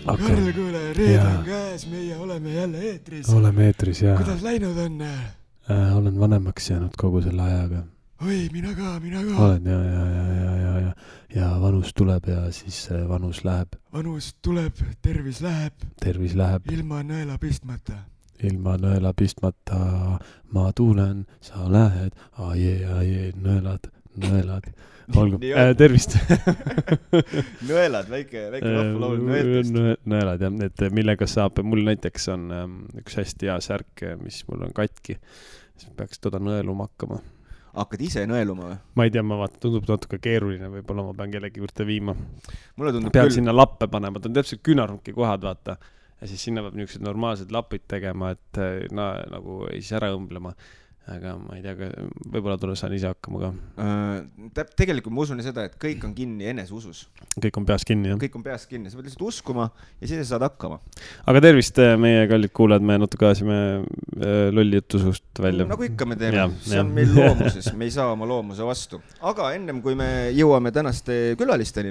Karl, kuule, reede on käes, meie oleme jälle eetris. Oleme eetris, jah. Kuidas läinud on? Olen vanemaks jäänud kogu selle ajaga. Oi, mina ka. Olen, ja vanus tuleb ja siis vanus läheb. Vanus tuleb, tervis läheb. Tervis läheb. Ilma nõela pistmata. Ilma nõela pistmata ma tuulen, sa lähed, aie, nõelad. Olgu, tervist. Nõelad, väike rahvulaul nõeltest. Nõelad, jah, et millega saab, mul näiteks on üks hästi hea särk, mis mul on katki. Siis peaks toda nõeluma hakkama. Hakkad ise nõeluma või? Ma ei tea, ma vaatan, tundub natuke keeruline, võib-olla ma pean kellegi juurde viima. Mulle tundub pean sinna lappe panema, ta on täpselt küünarnunki kohad, vaata. Ja siis sinna peab niisugused normaalsed lapid tegema, et nagu ei siis ära õmblema. Aga ma ei tea, võib-olla saan ise hakkama ka. Tegelikult ma usun seda, et kõik on kinni eneseusus. Kõik on peas kinni, jah? Kõik on peas kinni, sa pead lihtsalt uskuma ja siis saad hakkama. Aga tervist, meie kallid kuulajad, me natuke ajasime lolli jutu suust välja. Nagu ikka me teeme, see on meil loomuses, me ei saa oma loomuse vastu. Aga ennem kui me jõuame tänaste külalisteni,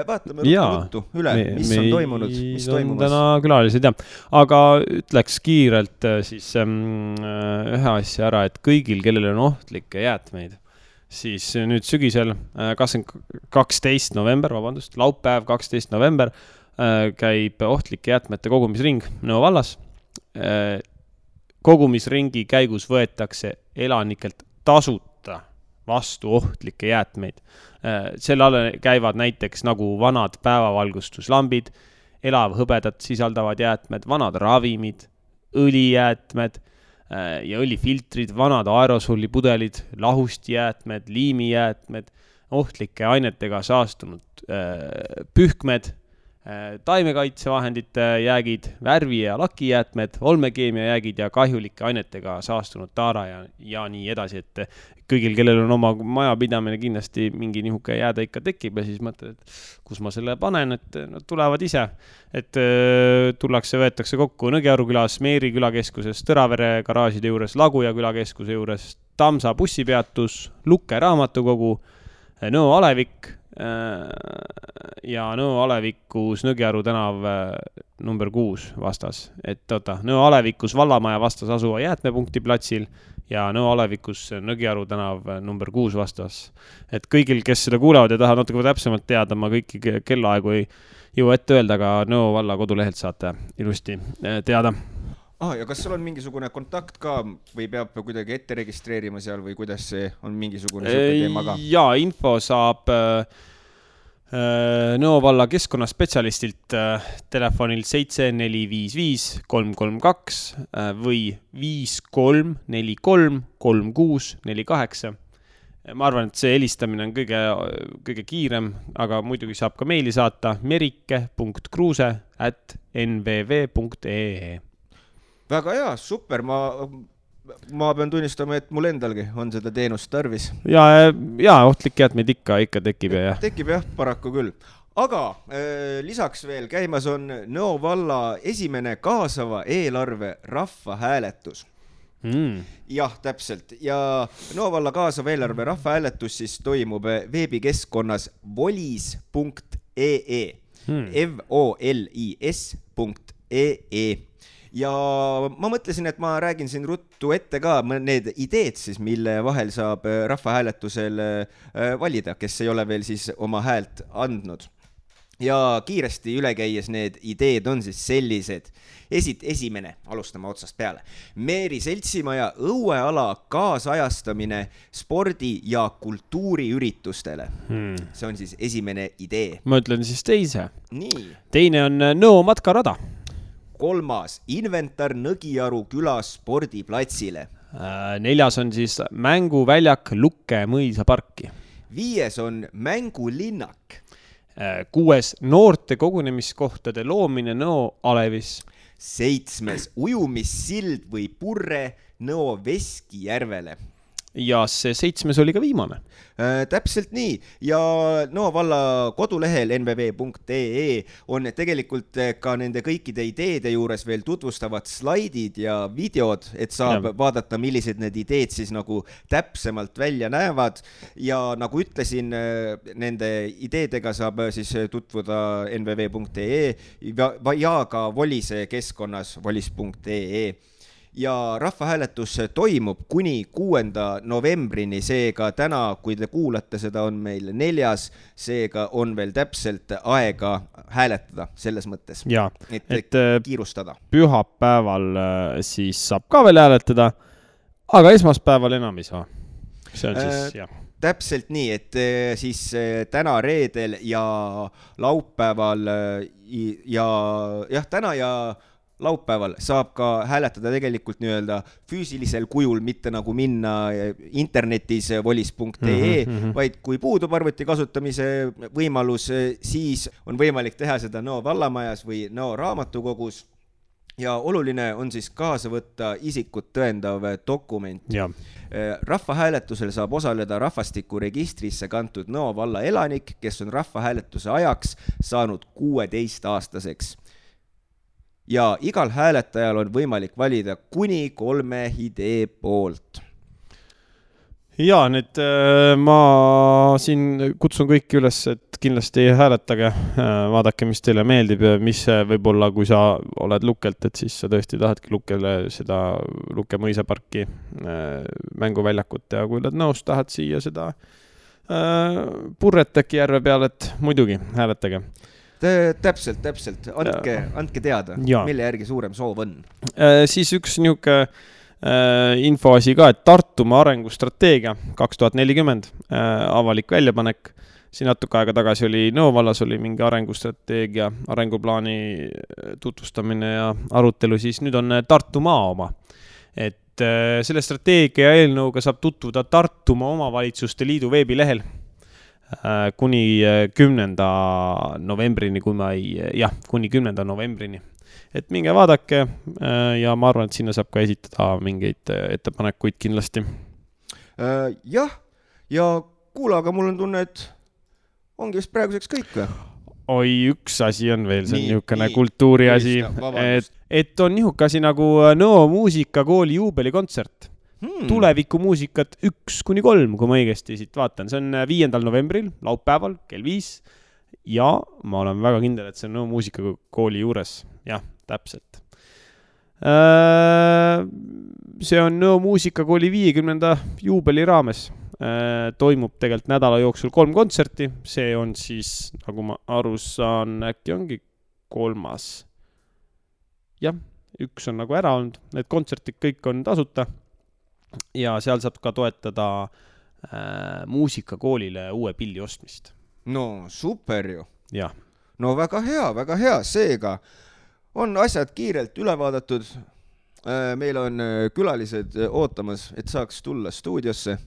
vaatame ruttu üle, mis on toimunud, mis toimumas. Täna külalised, jah. Aga ütleks kiirelt siis ühe asja ära, et kõigil, kellel on ohtlikke jäätmeid, siis nüüd sügisel 12. november, laupäev 12. november käib ohtlike jäätmete kogumisring Nõo vallas. Kogumisringi käigus võetakse elanikelt tasuta vastu ohtlikke jäätmeid. Selle alla käivad näiteks nagu vanad päevavalgustuslambid, elavhõbedat sisaldavad jäätmed, vanad ravimid, õlijäätmed ja õlifiltrid, vanad aerosollipudelid, lahustijäätmed, liimijäätmed, ohtlike ainetega saastunud pühkmed, taimekaitsevahendite jäägid, värvi- ja lakijäätmed, olmekeemia jäägid ja kahjulike ainetega saastunud taara ja nii edasi, et kõigil, kellel on oma majapidamine, kindlasti mingi nihuke jääda ikka tekib ja siis mõtled, et kus ma selle panen, et nad tulevad ise. Et võetakse kokku Nõgearu külas, Meeri külakeskuses, Tõravere garaažide juures, Laguja külakeskuse juures, Tamsa bussipeatus, Lukke raamatukogu, Nõo Alevik ja Nõo Alevikus Nõgearu tänav number 6 vastas. Et Nõo Alevikus Vallamaja vastas asuva jäätmepunkti platsil ja Nõo Alevikus Nõgearu tänav number 6 vastas. Et kõigil, kes seda kuulevad ja tahavad natuke täpsemalt teada, ma kõiki kellaaegu ei jõua ette öelda, aga Nõo valla kodulehelt saate ilusti teada. Ja kas sul on mingisugune kontakt ka või peab kuidagi ette registreerima seal või kuidas see on mingisugune teema ka? Jaa, info saab Nõo valla keskkonnaspetsialistilt telefonil 7455 332 või 5343 3648. Ma arvan, et see helistamine on kõige kiirem, aga muidugi saab ka meili saata merike.kruuse@nvv.ee. Väga hea, super, ma pean tunnistama, et mul endalgi on seda teenust tarvis. Ja ohtlik jäätmeid ikka tekib ja jah. Tekib jah, paraku küll. Aga lisaks veel käimas on Nõo valla esimene kaasava eelarve rahvahääletus. Jah, täpselt. Ja Nõo valla kaasava eelarve rahvahääletus siis toimub veebikeskkonnas volis.ee volis.ee. Ja ma mõtlesin, et ma räägin siin ruttu ette ka need ideed siis, mille vahel saab rahvahääletusel valida, kes ei ole veel siis oma häält andnud. Ja kiiresti üle käies need ideed on siis sellised. Esimene, alustame otsast peale. Meeri Seltsimaja õueala kaasajastamine spordi- ja kultuuriüritustele. See on siis esimene idee. Ma ütlen siis teise. Nii. Teine on Nõo matkarada. Kolmas, inventar Nõgiaru külas spordiplatsile. Neljas on siis mänguväljak Lukke mõisaparki. 5 on mängulinnak. 6 noorte kogunemiskohtade loomine Nõo Alevis. 7 ujumissild või purre Nõo Veskijärvele. ja see 7. oli ka viimane. Täpselt nii ja Nõo valla kodulehel nvv.ee on tegelikult ka nende kõikide ideede juures veel tutvustavad slaidid ja videod, et saab vaadata, millised need ideed siis nagu täpsemalt välja näevad ja nagu ütlesin, nende ideedega saab siis tutvuda nvv.ee ja ka Volise keskkonnas volis.ee. Ja rahvahääletus toimub kuni 6. novembrini, seega täna, kui te kuulate, seda on meil 4, seega on veel täpselt aega hääletada selles mõttes, et kiirustada. Pühapäeval siis saab ka veel hääletada, aga esmaspäeval enam ei saa. See on siis, jah. Täpselt nii, et siis täna reedel ja laupäeval ja täna ja laupäeval saab ka hääletada tegelikult nii-öelda füüsilisel kujul, mitte nagu minna internetis volis.ee, vaid kui puudub arvuti kasutamise võimalus, siis on võimalik teha seda Nõo vallamajas või Nõo raamatukogus ja oluline on siis kaasa võtta isikut tõendav dokument. Rahvahääletusel saab osaleda rahvastikuregistrisse kantud Nõo valla elanik, kes on rahvahääletuse ajaks saanud 16-aastaseks. Ja igal hääletajal on võimalik valida kuni 3 idee poolt. Ja nüüd ma siin kutsun kõiki üles, et kindlasti hääletage, vaadake, mis teile meeldib ja mis võib-olla, kui sa oled Lukelt, et siis sa tõesti tahadki Lukele seda Luke mõisaparki mänguväljakut ja kui oled nõus, tahad siia seda Purreteki järve peal, et muidugi hääletage. Täpselt. Andke teada, mille järgi suurem soov on. Siis üks niuke infoasi ka, et Tartumaa arengustrateegia 2040 avalik väljapanek. Siin natuke aega tagasi oli Nõo vallas oli mingi arengustrateegia, arenguplaani tutvustamine ja arutelu, siis nüüd on Tartumaa oma. Et selle strateegia eelnõuga saab tutvuda Tartumaa omavalitsuste liidu veebilehel kuni 10. novembrini, kuni 10. novembrini. Et minge vaadake ja ma arvan, et sinna saab ka esitada mingeid ettepanekuid kindlasti. Jah, ja kuule, aga mul on tunne, et ongi vist praeguseks kõik või? Oi, üks asi on veel, see on niisugune kultuuri asi, et on niisugune asi nagu Nõo muusikakooli juubelikontsert. Tulevikumuusikat 1-3, kui ma õigesti siit vaatan. See on 5. novembril, laupäeval, kell 5 ja ma olen väga kindel, et see on Nõo muusikakooli juures. Jah, täpselt. See on Nõo muusikakooli 50. juubeli raames. Toimub tegelikult nädala jooksul 3 kontserti. See on siis, nagu ma aru saan, äkki ongi 3. Jah, üks on nagu ära olnud. Need kontsertid kõik on tasuta. Ja seal saab ka toetada muusikakoolile uue pilli ostmist. No super ju. Ja. No väga hea. Seega on asjad kiirelt üle vaadatud. Meil on külalised ootamas, et saaks tulla stuudiosse.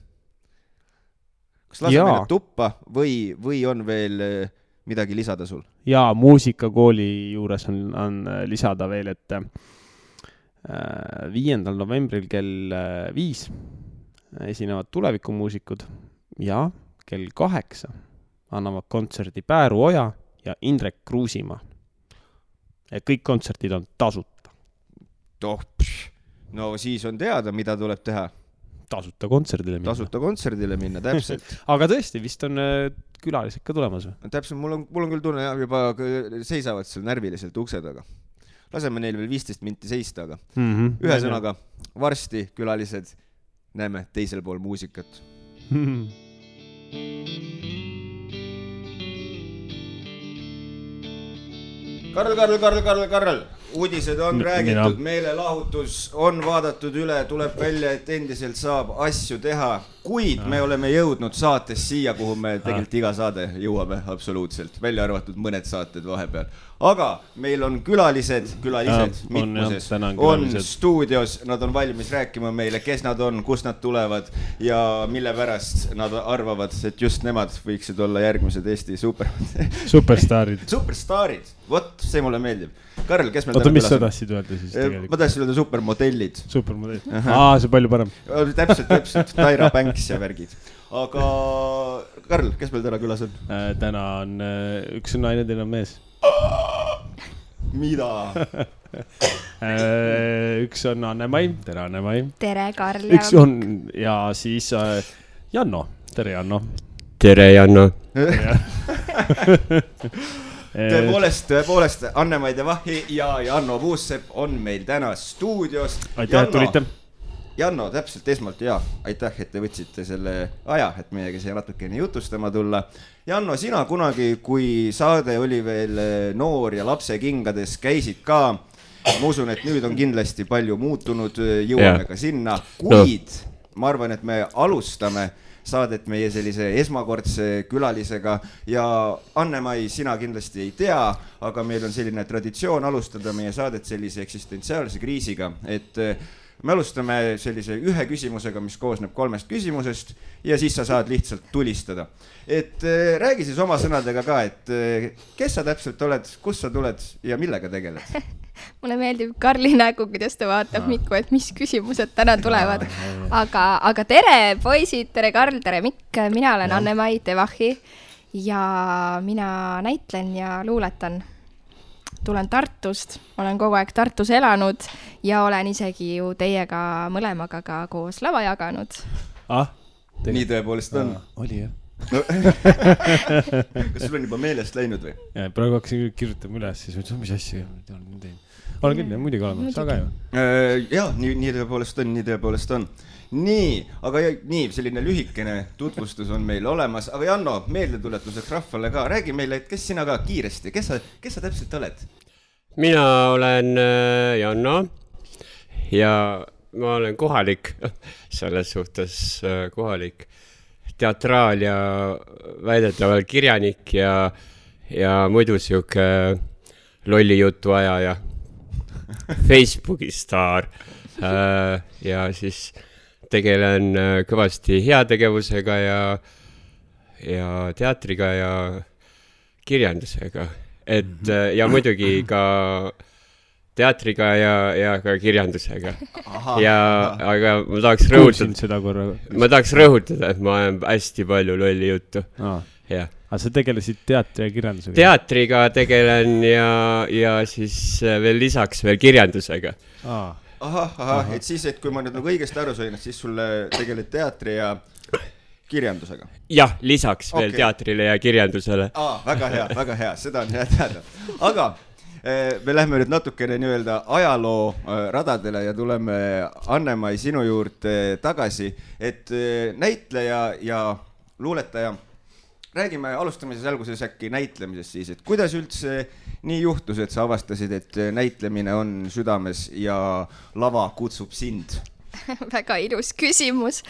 Kas lase meile tuppa või on veel midagi lisada sul? Ja muusikakooli juures on lisada veel, et 5. novembril kell 5 esinevad tulevikumuusikud ja kell 8 annavad kontserdi Pääru Oja ja Indrek Kruusimaa. Kõik kontsertid on tasuta. No siis on teada, mida tuleb teha. Tasuta kontserdile minna, täpselt. Aga tõesti, vist on külalised ka tulemas või? Täpselt, mul on küll tunne, juba seisavad seal närviliselt ukse taga. Laseme neil veel 15 minti seista, aga ühesõnaga, varsti külalised näeme teisel pool muusikat. Karl, uudised on räägitud, meelelahutus on vaadatud üle, tuleb välja, et endiselt saab asju teha. kuid me oleme jõudnud saates siia, kuhu me tegelikult iga saade jõuame absoluutselt, välja arvatud mõned saated vahepeal. Aga meil on külalised mitmuses, on stuudios, nad on valmis rääkima meile, kes nad on, kust nad tulevad ja mille pärast nad arvavad, et just nemad võiksid olla järgmised Eesti superstaarid. Superstaarid, vot, see mulle meeldib. Karl, kes meil täna külas on? Mis sa tahtsid öelda siis tegelikult? Ma tahtsin öelda supermodellid. Supermodellid. See palju parem. Täpselt, Taira Banks ja värgid. Aga Karl, kes meil täna külas on? Täna on üks naine, teine on mees. Mida? Üks on Anne-Mai. Tere, Anne-Mai. Tere, Karl. Üks on ja siis Janno. Tere, Janno. Tere, Janno. Tõepoolest, Anne-Mai Devahi ja Janno Puussepp on meil täna stuudios. Aitäh, et tulite. Janno, täpselt esmalt aitäh, et te võtsite selle aja, et meiega siia natukene jutustama tulla. Janno, sina kunagi, kui saade oli veel noor ja lapse kingades, käisid ka. Ma usun, et nüüd on kindlasti palju muutunud, jõuame ka sinna, kuid ma arvan, et me alustame saadet meie sellise esmakordse külalisega ja Anne-Mai, sina kindlasti ei tea, aga meil on selline traditsioon alustada meie saadet sellise eksistentsiaalse kriisiga, et me alustame sellise ühe küsimusega, mis koosneb 3 küsimusest ja siis sa saad lihtsalt tulistada. Et räägi siis oma sõnadega ka, et kes sa täpselt oled, kust sa tuled ja millega tegeled? Mulle meeldib Karli nägu, kuidas ta vaatab Mikku, et mis küsimused täna tulevad. Aga tere poisid, tere Karl, tere Mikk, mina olen Anne-Mai Devahi ja mina näitlen ja luuletan. Tulen Tartust, olen kogu aeg Tartus elanud ja olen isegi ju teiega mõlemaga ka koos lava jaganud. Nii tõepoolest on. Oli jah. Kas sul on juba meelest läinud või? Praegu hakkasin kirjutama üles, siis mõtlesin, mis asja olen küll, muidugi olema, sa ka ju. Jaa, nii tõepoolest on. Nii, aga nii, selline lühikene tutvustus on meil olemas, aga Janno, meeldetuletuseks rahvale ka, räägi meile, et kes sina ka kiiresti, kes sa täpselt oled? Mina olen Janno ja ma olen kohalik, selles suhtes kohalik teatraal ja väidetaval kirjanik ja muidu siuke lolli jutu aja ja Facebooki staar ja siis tegelen kõvasti heategevusega ja teatriga ja kirjandusega. Ja muidugi ka teatriga ja ka kirjandusega. Aga ma tahaks rõhutada, et ma olen hästi palju lolli juttu. Aga sa tegelesid teatri ja kirjandusega? Teatriga tegelen ja siis veel lisaks veel kirjandusega. Et siis, et kui ma nüüd õigesti aru sain, et siis sulle tegeled teatri ja kirjandusega. Jah, lisaks veel teatrile ja kirjandusele. Väga hea, seda on hea teada. Aga me lähme nüüd natukene nii-öelda ajaloo radadele ja tuleme Anne-Mai sinu juurde tagasi, et näitleja ja luuletaja. Räägime alustamises alguses äkki näitlemisest siis, et kuidas üldse nii juhtus, et sa avastasid, et näitlemine on südames ja lava kutsub sind? Väga ilus küsimus.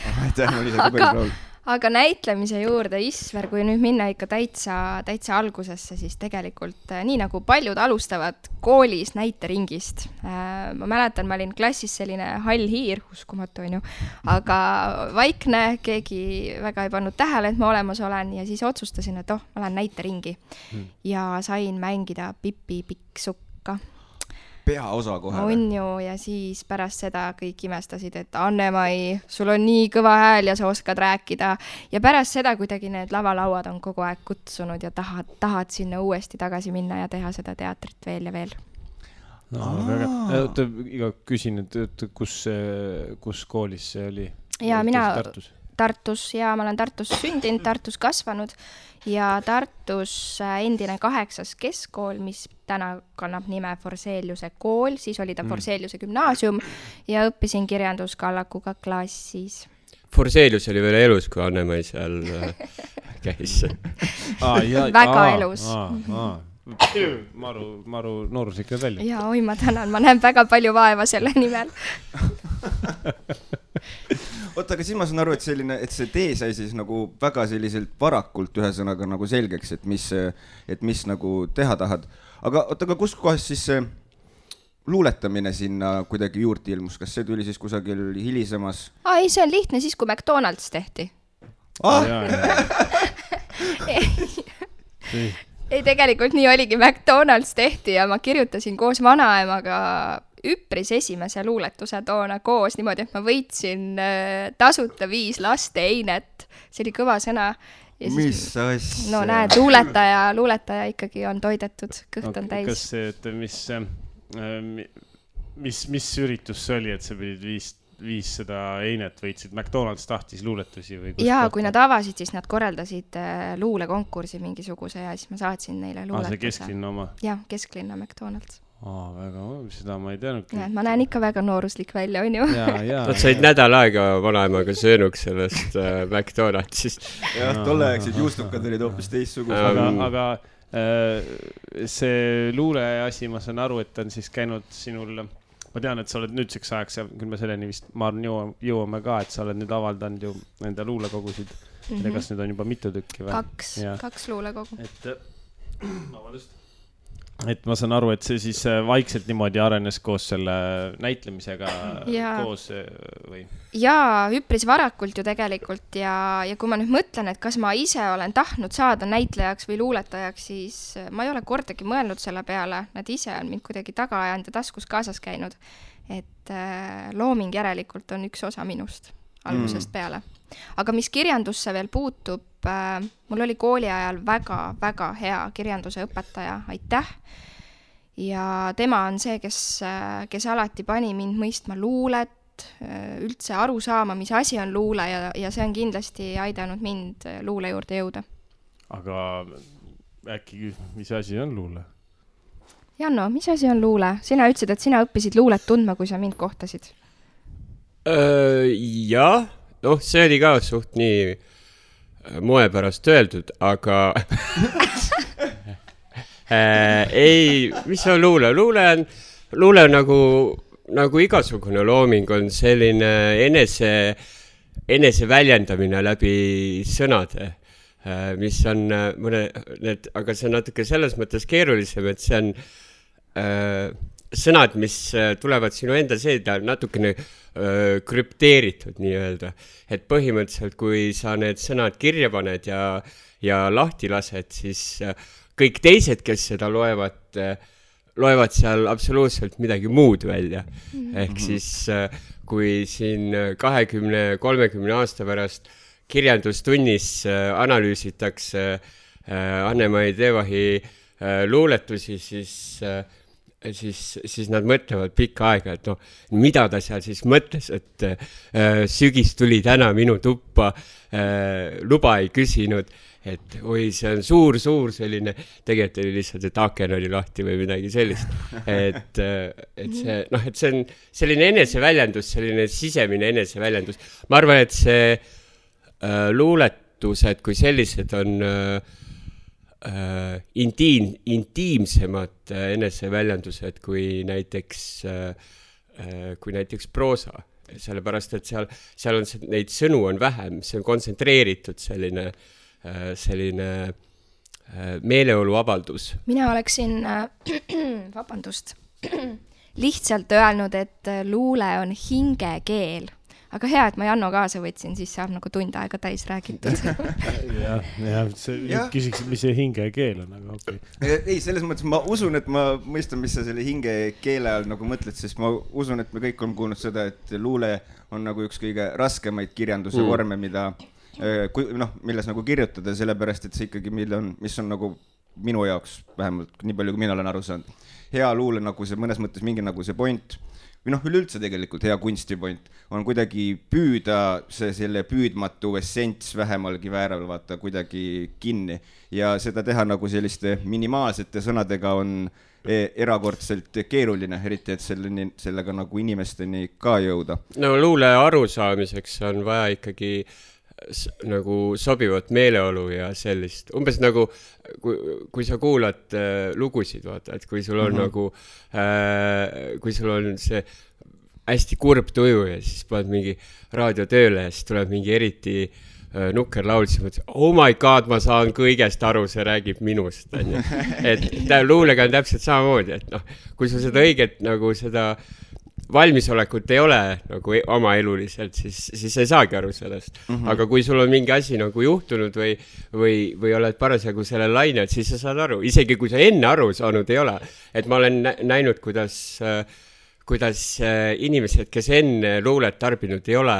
Aga näitlemise juurde, Isver, kui nüüd minna ikka täitsa algusesse, siis tegelikult nii nagu paljud alustavad koolis näiteringist. Ma mäletan, ma olin klassis selline hall hiir, uskumatu on ju, aga vaikne, keegi väga ei pannud tähele, et ma olemas olen ja siis otsustasin, et ma lähen näiteringi ja sain mängida Pipi Pikksukka. Peaosa kohe. On ju, ja siis pärast seda kõik imestasid, et Anne-Mai, sul on nii kõva hääl ja sa oskad rääkida. Ja pärast seda kuidagi need lavalauad on kogu aeg kutsunud ja tahad sinna uuesti tagasi minna ja teha seda teatrit veel ja veel. Iga küsin, et kus koolis see oli? Ja mina Tartus ja ma olen Tartus sündinud, Tartus kasvanud ja Tartus endine 8. keskkool, mis täna kannab nime Forseliuse kool, siis oli ta Forseliuse gümnaasium ja õppisin kirjanduskallakuga klassis. Forselius oli veel elus, kui Anne-Mai seal käis. Väga elus. Maru noorus ikka välja. Ja oi, ma tänan, ma näen väga palju vaeva selle nimel. oota, aga siis ma saan aru, et see tee sai siis nagu väga selliselt varakult ühesõnaga nagu selgeks, et mis nagu teha tahad. Aga oota, aga kus kohas siis see luuletamine sinna kuidagi juurde ilmus? Kas see tuli siis kusagil hilisemas? Ei, see on lihtne siis, kui McDonald's tehti. Ei, tegelikult nii oligi, McDonald's tehti ja ma kirjutasin koos vanaemaga üpris esimese luuletuse toona koos niimoodi, et ma võitsin tasuta 5 laste einet. See oli kõva sõna. Mis asja? No näed, luuletaja ikkagi on toidetud, kõht on täis. Kas see, et mis üritus see oli, et sa pidid 500 einet võitsid? McDonald's tahtis luuletusi või kus? Jaa, kui nad avasid, siis nad korraldasid luulekonkursi mingisuguse ja siis ma saatsin neile luuletuse. See kesklinna oma? Jah, kesklinna McDonald's. Väga, seda ma ei teadnudki. Ja, ma näen ikka väga nooruslik välja, on ju? Nad said nädal aega vanaemaga söönuks sellest McDonaldsist. Jah, tolleaegsid juustukad olid hoopis teistsugused. Aga see luule asi, ma saan aru, et on siis käinud sinul... Ma tean, et sa oled nüüdseks ajaks ja küll me selleni vist, ma arvan, jõuame ka, et sa oled nüüd avaldanud ju enda luulekogusid. Kas nüüd on juba mitu tükki või? 2 luulekogu. Et ma saan aru, et see siis vaikselt niimoodi arenes koos selle näitlemisega koos või? Jaa, üpris varakult ju tegelikult ja kui ma nüüd mõtlen, et kas ma ise olen tahtnud saada näitlejaks või luuletajaks, siis ma ei ole kordagi mõelnud selle peale. Nad ise on mind kuidagi taga ajanud ja taskus kaasas käinud. Et looming järelikult on üks osa minust algusest peale. Aga mis kirjandusse veel puutub, mul oli kooli ajal väga hea kirjanduse õpetaja, aitäh. Ja tema on see, kes alati pani mind mõistma luulet, üldse aru saama, mis asi on luule ja see on kindlasti aidanud mind luule juurde jõuda. Aga äkki, mis asi on luule? Janno, mis asi on luule? Sina ütlesid, et sina õppisid luulet tundma, kui sa mind kohtasid. Jah, see oli ka suht nii moe pärast öeldud, aga ei, mis on luule? Luule on nagu igasugune looming on selline enese väljendamine läbi sõnade, mis on aga see on natuke selles mõttes keerulisem, et see on sõnad, mis tulevad sinu enda seeda natukene krüpteeritud nii-öelda. Et põhimõtteliselt, kui sa need sõnad kirja paned ja lahti lased, siis kõik teised, kes seda loevad seal absoluutselt midagi muud välja. Ehk siis, kui siin 20-30 aasta pärast kirjandustunnis analüüsitakse Anne-Mai Teevahi luuletusi, siis nad mõtlevad pikka aega, et mida ta seal siis mõtles, et sügis tuli täna minu tuppa, luba ei küsinud, et oi, see on suur selline, tegelikult oli lihtsalt, et aken oli lahti või midagi sellist. Et see on selline eneseväljendus, selline sisemine eneseväljendus. Ma arvan, et see luuletused kui sellised on intiimsemad eneseväljendused kui näiteks proosa. Sellepärast, et seal on neid sõnu on vähem, see on kontsentreeritud selline meeleoluavaldus. Mina oleksin, lihtsalt öelnud, et luule on hingekeel. Aga hea, et ma Janno kaasa võtsin, siis saab nagu tund aega täis räägitud. Küsiksid, mis see hingekeel on, aga okei. Ei, selles mõttes ma usun, et ma mõistan, mis sa selle hingekeele all nagu mõtled, sest ma usun, et me kõik on kuulnud seda, et luule on nagu üks kõige raskemaid kirjanduse vorme, milles nagu kirjutada, sellepärast, et see ikkagi, mis on nagu minu jaoks vähemalt, nii palju kui mina olen aru saanud. Hea luule nagu see mõnes mõttes mingi nagu see point, või üleüldse tegelikult hea kunstipoint on kuidagi püüda selle püüdmatu essents vähemalgi vääral vaata kuidagi kinni ja seda teha nagu selliste minimaalsete sõnadega on erakordselt keeruline, eriti et sellega nagu inimesteni ka jõuda. No luule arusaamiseks on vaja ikkagi nagu sobivat meeleolu ja sellist, umbes nagu kui sa kuulad lugusid, vaata, et kui sul on nagu kui sul on see hästi kurb tuju ja siis paned mingi raadio tööle ja siis tuleb mingi eriti nukker laul, siis mõtled, oh my god, ma saan kõigest aru, see räägib minust, on ju. Et luulega on täpselt samamoodi, et noh, kui sul seda õiget nagu seda valmisolekut ei ole nagu oma eluliselt, siis ei saagi aru sellest. Aga kui sul on mingi asi nagu juhtunud või oled parasjagu selle lainel, siis sa saad aru, isegi kui sa enne aru saanud ei ole. Et ma olen näinud, kuidas inimesed, kes enne luulet tarbinud ei ole,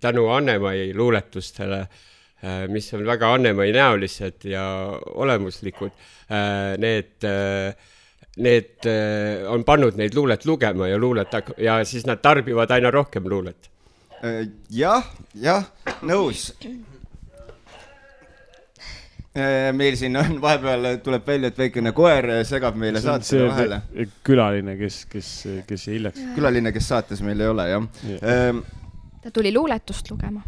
tänu Annemai luuletustele, mis on väga Annemai näolised ja olemuslikud, need on pannud neid luulet lugema ja siis nad tarbivad aina rohkem luulet. Jah, nõus. Meil siin on vahepeal tuleb välja, et väikene koer segab meile saate vahele. Külaline, kes hiljaks. Külaline, kes saates meil ei ole, jah. Ta tuli luuletust lugema.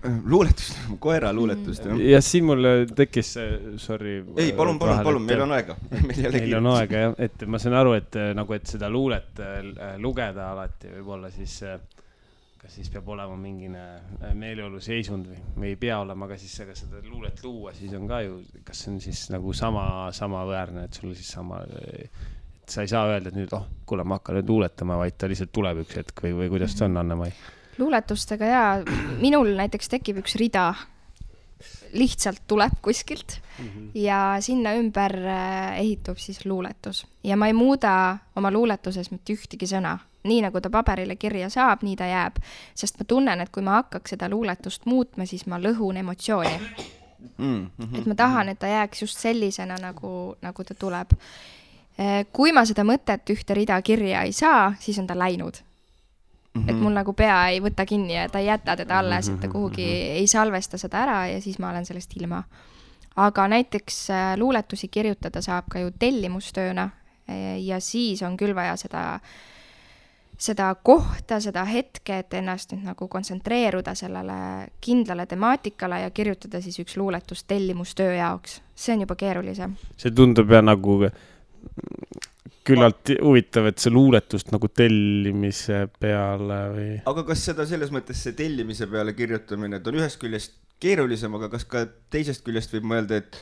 Koera luuletust, jah. Ja siin mul tekkis, sorry. Ei, palun, meil on aega. Meil on aega, jah. Et ma saan aru, et seda luulet lugeda alati võib-olla siis, kas siis peab olema mingine meeleolu seisund või ei pea olema, aga siis seda luulet luua, siis on ka ju, kas see on siis nagu sama väärne, et sul siis sama, et sa ei saa öelda, et nüüd, kuule, ma hakkan nüüd luuletama, vaid ta lihtsalt tuleb üks hetk või kuidas see on, Annemai? Luuletustega minul näiteks tekib üks rida, lihtsalt tuleb kuskilt ja sinna ümber ehitub siis luuletus. Ja ma ei muuda oma luuletuses mitte ühtegi sõna. Nii nagu ta paberile kirja saab, nii ta jääb. Sest ma tunnen, et kui ma hakkaks seda luuletust muutma, siis ma lõhun emotsiooni. Et ma tahan, et ta jääks just sellisena, nagu ta tuleb. Kui ma seda mõtet ühte rida kirja ei saa, siis on ta läinud. Et mul nagu pea ei võta kinni ja ta ei jäta teda alles, et ta kuhugi ei salvesta seda ära ja siis ma olen sellest ilma. Aga näiteks luuletusi kirjutada saab ka ju tellimustööna ja siis on küll vaja seda kohta, seda hetke, et ennast nüüd nagu kontsentreeruda sellele kindlale temaatikale ja kirjutada siis üks luuletus tellimustöö jaoks. See on juba keerulisem. See tundub ja nagu küllalt huvitav, et see luuletust nagu tellimise peale või... Aga kas seda selles mõttes see tellimise peale kirjutamine, et on ühest küljest keerulisem, aga kas ka teisest küljest võib mõelda, et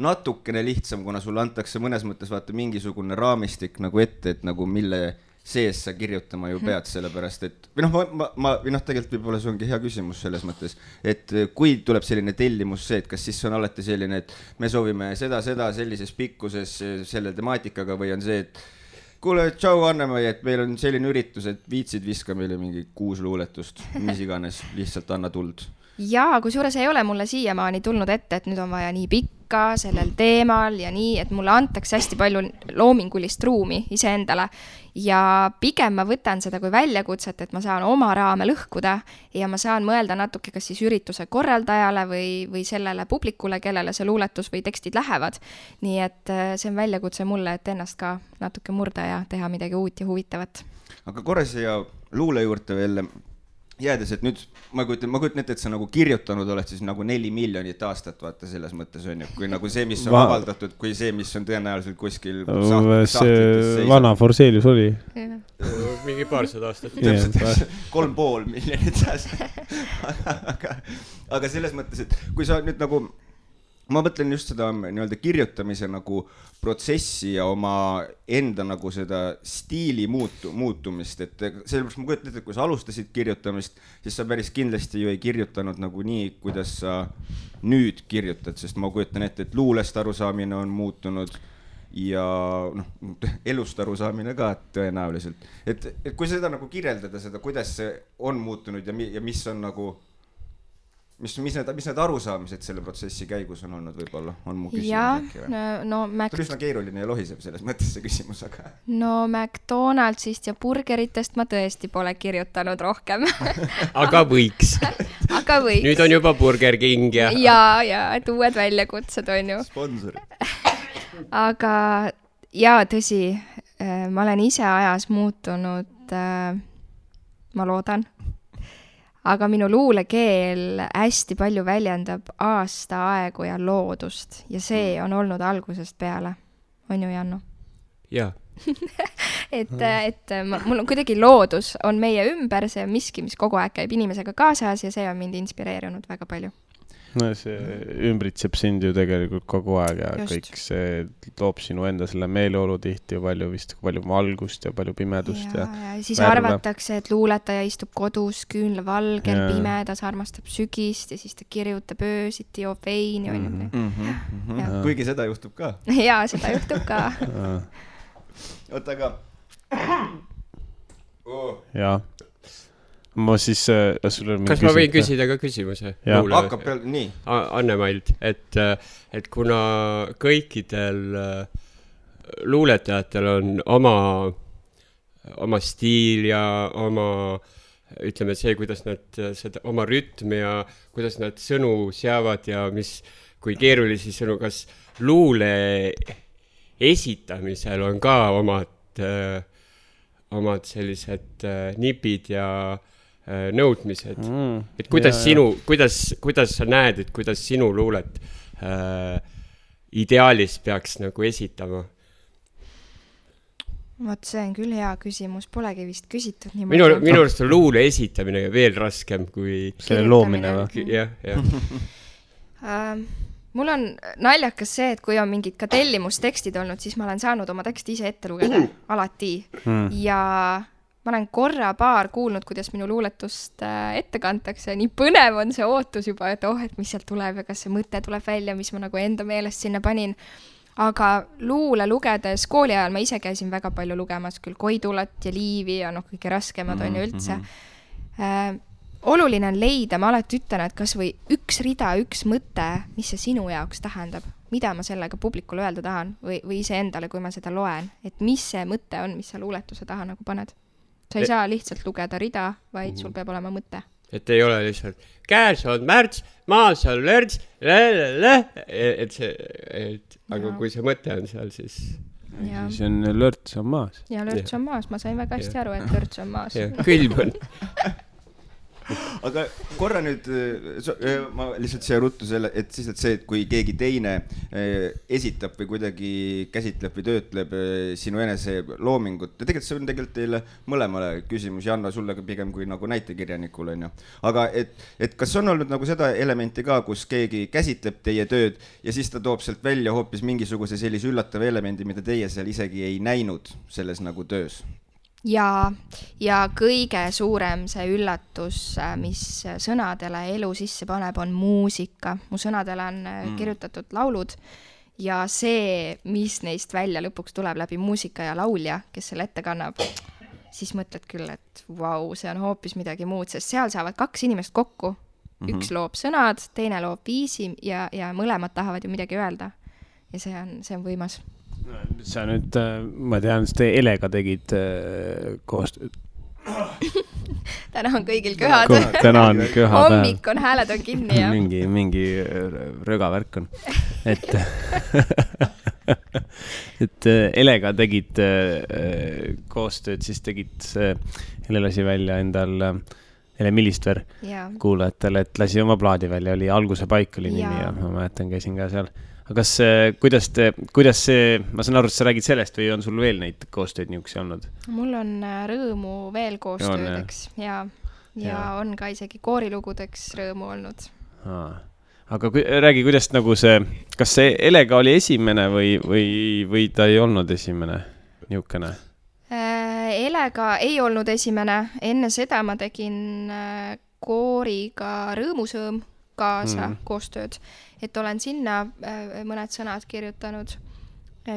natukene lihtsam, kuna sulle antakse mõnes mõttes vaata mingisugune raamistik nagu ette, et nagu mille sees sa kirjutama ju pead sellepärast, et või tegelikult võib-olla see ongi hea küsimus selles mõttes, et kui tuleb selline tellimus see, et kas siis on alati selline, et me soovime seda sellises pikkuses selle temaatikaga või on see, et kuule, tšau Annemai, et meil on selline üritus, et viitsid viska meile mingi 6 luuletust, mis iganes, lihtsalt anna tuld. Jaa, kusjuures ei ole mulle siiamaani tulnud ette, et nüüd on vaja nii pikka sellel teemal ja nii, et mulle antakse hästi palju loomingulist ruumi iseendale ja pigem ma võtan seda kui väljakutset, et ma saan oma raame lõhkuda ja ma saan mõelda natuke kas siis ürituse korraldajale või sellele publikule, kellele see luuletus või tekstid lähevad. Nii et see on väljakutse mulle, et ennast ka natuke murda ja teha midagi uut ja huvitavat. Aga korra siia luule juurde veel jäädes, et nüüd ma kujutan ette, et sa nagu kirjutanud oled siis nagu 4 miljonit aastat, vaata selles mõttes on ju, kui nagu see, mis on avaldatud, kui see, mis on tõenäoliselt kuskil see vana Forselius oli. Mingi 200 aastat. 3,5 miljonit aastat. Aga selles mõttes, et kui sa nüüd nagu, ma mõtlen just seda nii-öelda kirjutamise nagu protsessi ja oma enda nagu seda stiili muutumist, et sellepärast ma kujutan ette, et kui sa alustasid kirjutamist, siis sa päris kindlasti ju ei kirjutanud nagu nii, kuidas sa nüüd kirjutad, sest ma kujutan ette, et luulest arusaamine on muutunud ja elust arusaamine ka tõenäoliselt. Et kui seda nagu kirjeldada seda, kuidas see on muutunud ja mis on nagu mis need arusaamised selle protsessi käigus on olnud võib-olla, on mu küsimus äkki või? Ta on üsna keeruline ja lohiseb selles mõttes see küsimus, aga... No McDonaldsist ja burgeritest ma tõesti pole kirjutanud rohkem. Aga võiks. Nüüd on juba Burger King ja... Ja, et uued väljakutsed on ju. Sponsor. Aga tõsi, ma olen ise ajas muutunud, ma loodan. Aga minu luulekeel hästi palju väljendab aastaaegu ja loodust ja see on olnud algusest peale. On ju, Janno? Jaa, mul on kuidagi loodus, on meie ümber, see on miski, mis kogu aeg käib inimesega kaasas ja see on mind inspireerinud väga palju. No see ümbritseb sind ju tegelikult kogu aeg ja Just. kõik see toob sinu enda selle meeleolu tihti ju palju valgust ja palju pimedust ja siis värve. arvatakse, et luuletaja istub kodus küünlavalgel, pimedas, armastab sügist ja siis ta kirjutab öösiti, joob veini. Kuigi seda juhtub ka. Jaa, seda juhtub ka. Oota, aga... Jaa. Ma siis... Kas ma võin küsida ka küsimuse? Hakkab peal, nii. Anne-Maild, et kuna kõikidel luuletajatel on oma stiil ja oma, ütleme see, kuidas nad seda, oma rütm ja kuidas nad sõnu seavad ja kui keerulisi sõnu, kas luule esitamisel on ka omad sellised nipid ja nõudmised. Et kuidas sa näed, et kuidas sinu luulet ideaalis peaks nagu esitama? Vot see on küll hea küsimus, polegi vist küsitud nii minu arust on luule esitamine veel raskem kui selle loomine või? Jah. Mul on naljakas see, et kui on mingid ka tellimustekstid olnud, siis ma olen saanud oma teksti ise ette lugeda alati ja ma olen paar kuulnud, kuidas minu luuletust ette kantakse. Nii põnev on see ootus juba, et et mis sealt tuleb ja kas see mõte tuleb välja, mis ma nagu enda meelest sinna panin. Aga luule lugedes kooli ajal ma ise käisin väga palju lugemas, küll Koidulat ja Liivi ja kõige raskemad on ju üldse. Oluline on leida, ma alati ütlen, et kas või üks rida, üks mõte, mis see sinu jaoks tähendab, mida ma sellega publikule öelda tahan või ise endale, kui ma seda loen, et mis see mõte on, mis sa luuletuse taha nagu paned. Sa ei saa lihtsalt lugeda rida, vaid sul peab olema mõte. Et ei ole lihtsalt käes on märts, maas on lörts, aga kui see mõte on seal, siis... Siis on lörts on maas. Ja lörts on maas, ma sain väga hästi aru, et lörts on maas. Külm on. Aga korra nüüd, ma lihtsalt siia ruttu selle, et siis see, et kui keegi teine esitab või kuidagi käsitleb või töötleb sinu enese loomingut, ja tegelikult see on tegelikult teile mõlemale küsimus, Janna, sulle pigem kui nagu näitekirjanikul on ju. Aga et kas on olnud nagu seda elementi ka, kus keegi käsitleb teie tööd ja siis ta toob sealt välja hoopis mingisuguse sellise üllatava elemendi, mida teie seal isegi ei näinud selles nagu töös? Ja kõige suurem see üllatus, mis sõnadele elu sisse paneb, on muusika. Mu sõnadele on kirjutatud laulud ja see, mis neist välja lõpuks tuleb läbi muusika ja laulja, kes selle ette kannab, siis mõtled küll, et vau, see on hoopis midagi muud, sest seal saavad 2 inimest kokku. Üks loob sõnad, teine loob viisi ja mõlemad tahavad ju midagi öelda. Ja see on võimas. Sa nüüd, ma tean, te Elega tegid koostööd. Täna on kõigil köhad. Täna on köhad. Hommik on, hääled on kinni ja... Mingi rögavärk on. Et Elega tegid koostööd, siis tegid Ele lasi välja endal Ele Millistver kuulajatele, et lasi oma plaadi välja, oli Alguse paik oli nimi ja ma mäletan, käisin ka seal. Aga kuidas see, ma saan aru, et sa räägid sellest või on sul veel neid koostööd niisuguse olnud? Mul on rõõmu veel koostöödeks ja on ka isegi koorilugudeks rõõmu olnud. Aga räägi, kuidas nagu kas see Elega oli esimene või ta ei olnud esimene niisugune? Elega ei olnud esimene. Enne seda ma tegin kooriga Rõõmusõõm kaasa koostööd. Et olen sinna mõned sõnad kirjutanud.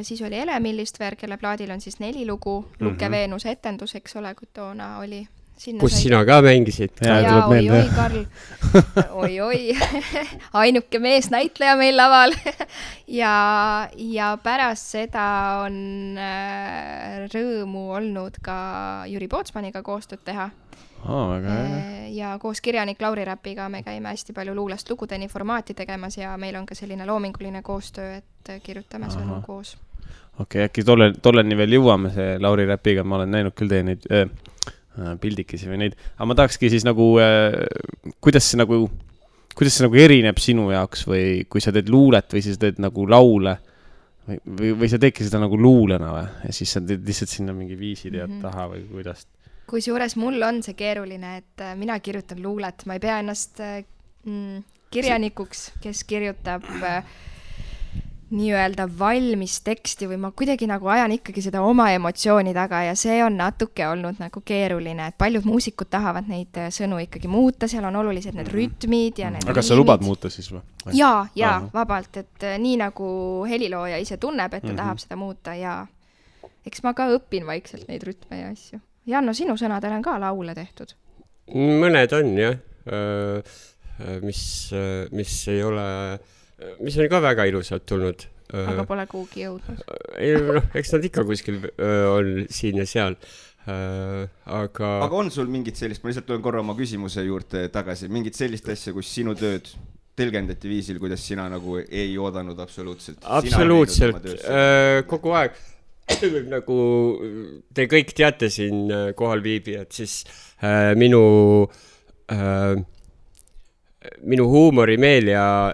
Siis oli Ele Millistver, kelle plaadil on siis 4 lugu. Luke Veenuse etendus, eks ole, kui toona oli. Kus sina ka mängisid? Oi, Karl. Oi. Ainuke mees näitleja meil laval. ja pärast seda on rõõmu olnud ka Jüri Pootsmaniga koostööd teha. Ja koos kirjanik Lauri Räpiga me käime hästi palju luulest lugudeni formaati tegemas ja meil on ka selline loominguline koostöö, et kirjutame sõnu koos. Okei, äkki tolleni veel jõuame see Lauri Räpiga, ma olen näinud küll teie neid pildikesi või neid, aga ma tahakski siis nagu, kuidas see nagu erineb sinu jaoks või kui sa teed luulet või siis teed nagu laule, või sa teedki seda nagu luulena või? Ja siis sa teed lihtsalt sinna mingi viisid ja taha või kuidas? Kusjuures mul on see keeruline, et mina kirjutan luulet, ma ei pea ennast kirjanikuks, kes kirjutab nii-öelda valmis teksti või ma kuidagi nagu ajan ikkagi seda oma emotsiooni taga ja see on natuke olnud nagu keeruline, et paljud muusikud tahavad neid sõnu ikkagi muuta, seal on olulised need rütmid ja need Aga kas sa lubad muuta siis või? Jaa, vabalt, et nii nagu helilooja ise tunneb, et ta tahab seda muuta ja eks ma ka õpin vaikselt neid rütme ja asju. Janno, sinu sõnadel on ka laule tehtud? Mõned on, jah. Mis ei ole... mis on ka väga ilusad tulnud. Aga pole kuhugi jõudnud. Eks nad ikka kuskil on siin ja seal. Aga on sul mingit sellist, ma lihtsalt tulen korra oma küsimuse juurde tagasi, mingit sellist asja, kus sinu tööd tõlgendati viisil, kuidas sina nagu ei oodanud absoluutselt? Absoluutselt, kogu aeg. Nagu te kõik teate siin kohal viibijad, siis minu huumorimeel ja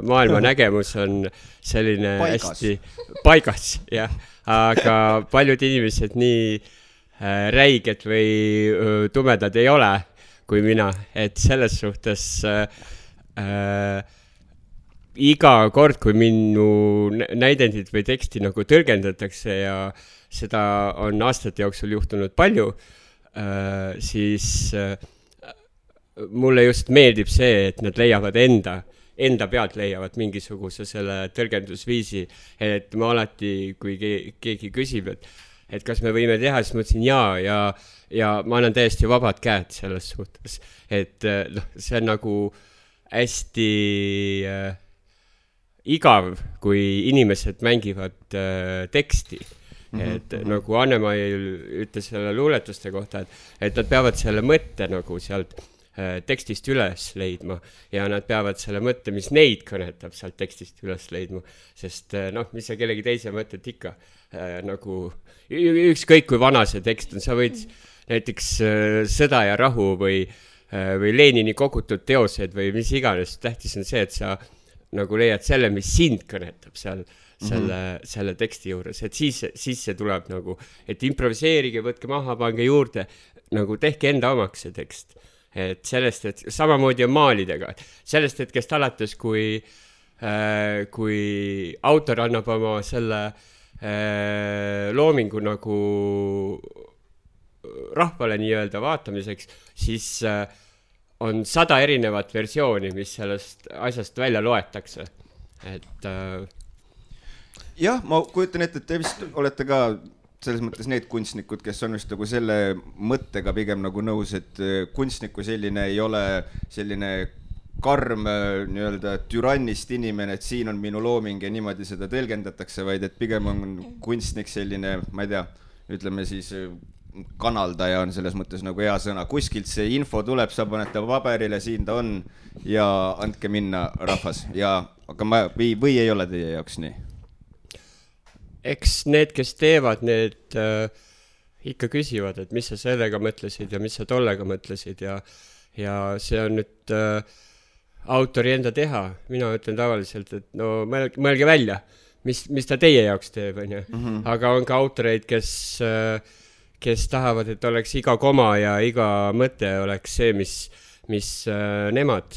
maailma nägemus on selline hästi paigas, jah. Aga paljud inimesed nii räiged või tumedad ei ole kui mina, et selles suhtes iga kord, kui minu näidendit või teksti nagu tõlgendatakse ja seda on aastate jooksul juhtunud palju, siis mulle just meeldib see, et nad leiavad enda pealt leiavad mingisuguse selle tõlgendusviisi, et ma alati, kui keegi küsib, et kas me võime teha, siis ma ütlesin ja ma annan täiesti vabad käed selles suhtes, et see on nagu hästi igav, kui inimesed mängivad teksti. Et nagu Anne-Mail ütles selle luuletuste kohta, et nad peavad selle mõtte nagu sealt tekstist üles leidma ja nad peavad selle mõtte, mis neid kõnetab sealt tekstist üles leidma, sest mis sa kellegi teise mõtet ikka nagu ükskõik kui vana see tekst on, sa võid näiteks Sõda ja rahu või Lenini kogutud teosed või mis iganes, tähtis on see, et sa nagu leiad selle, mis sind kõnetab seal selle teksti juures, et siis see tuleb nagu, et improviseerige, võtke maha, pange juurde, nagu tehke enda omaks see tekst. Et sellest, et samamoodi on maalidega, sellest hetkest alates, kui autor annab oma selle loomingu nagu rahvale nii-öelda vaatamiseks, siis on 100 erinevat versiooni, mis sellest asjast välja loetakse. Et jah, ma kujutan ette, et te vist olete ka selles mõttes need kunstnikud, kes on vist nagu selle mõttega pigem nagu nõus, et kunstniku selline ei ole selline karm nii-öelda türannist inimene, et siin on minu looming ja niimoodi seda tõlgendatakse, vaid et pigem on kunstnik selline, ma ei tea, ütleme siis kanaldaja on selles mõttes nagu hea sõna. Kuskilt see info tuleb, sa panete paberile, siin ta on ja andke minna rahvas. Aga või ei ole teie jaoks nii? Eks need, kes teevad, need ikka küsivad, et mis sa sellega mõtlesid ja mis sa tollega mõtlesid ja see on nüüd autori enda teha. Mina ütlen tavaliselt, et no mõelge välja, mis ta teie jaoks teeb, on ju. Aga on ka autoreid, kes tahavad, et oleks iga koma ja iga mõte oleks see, mis nemad.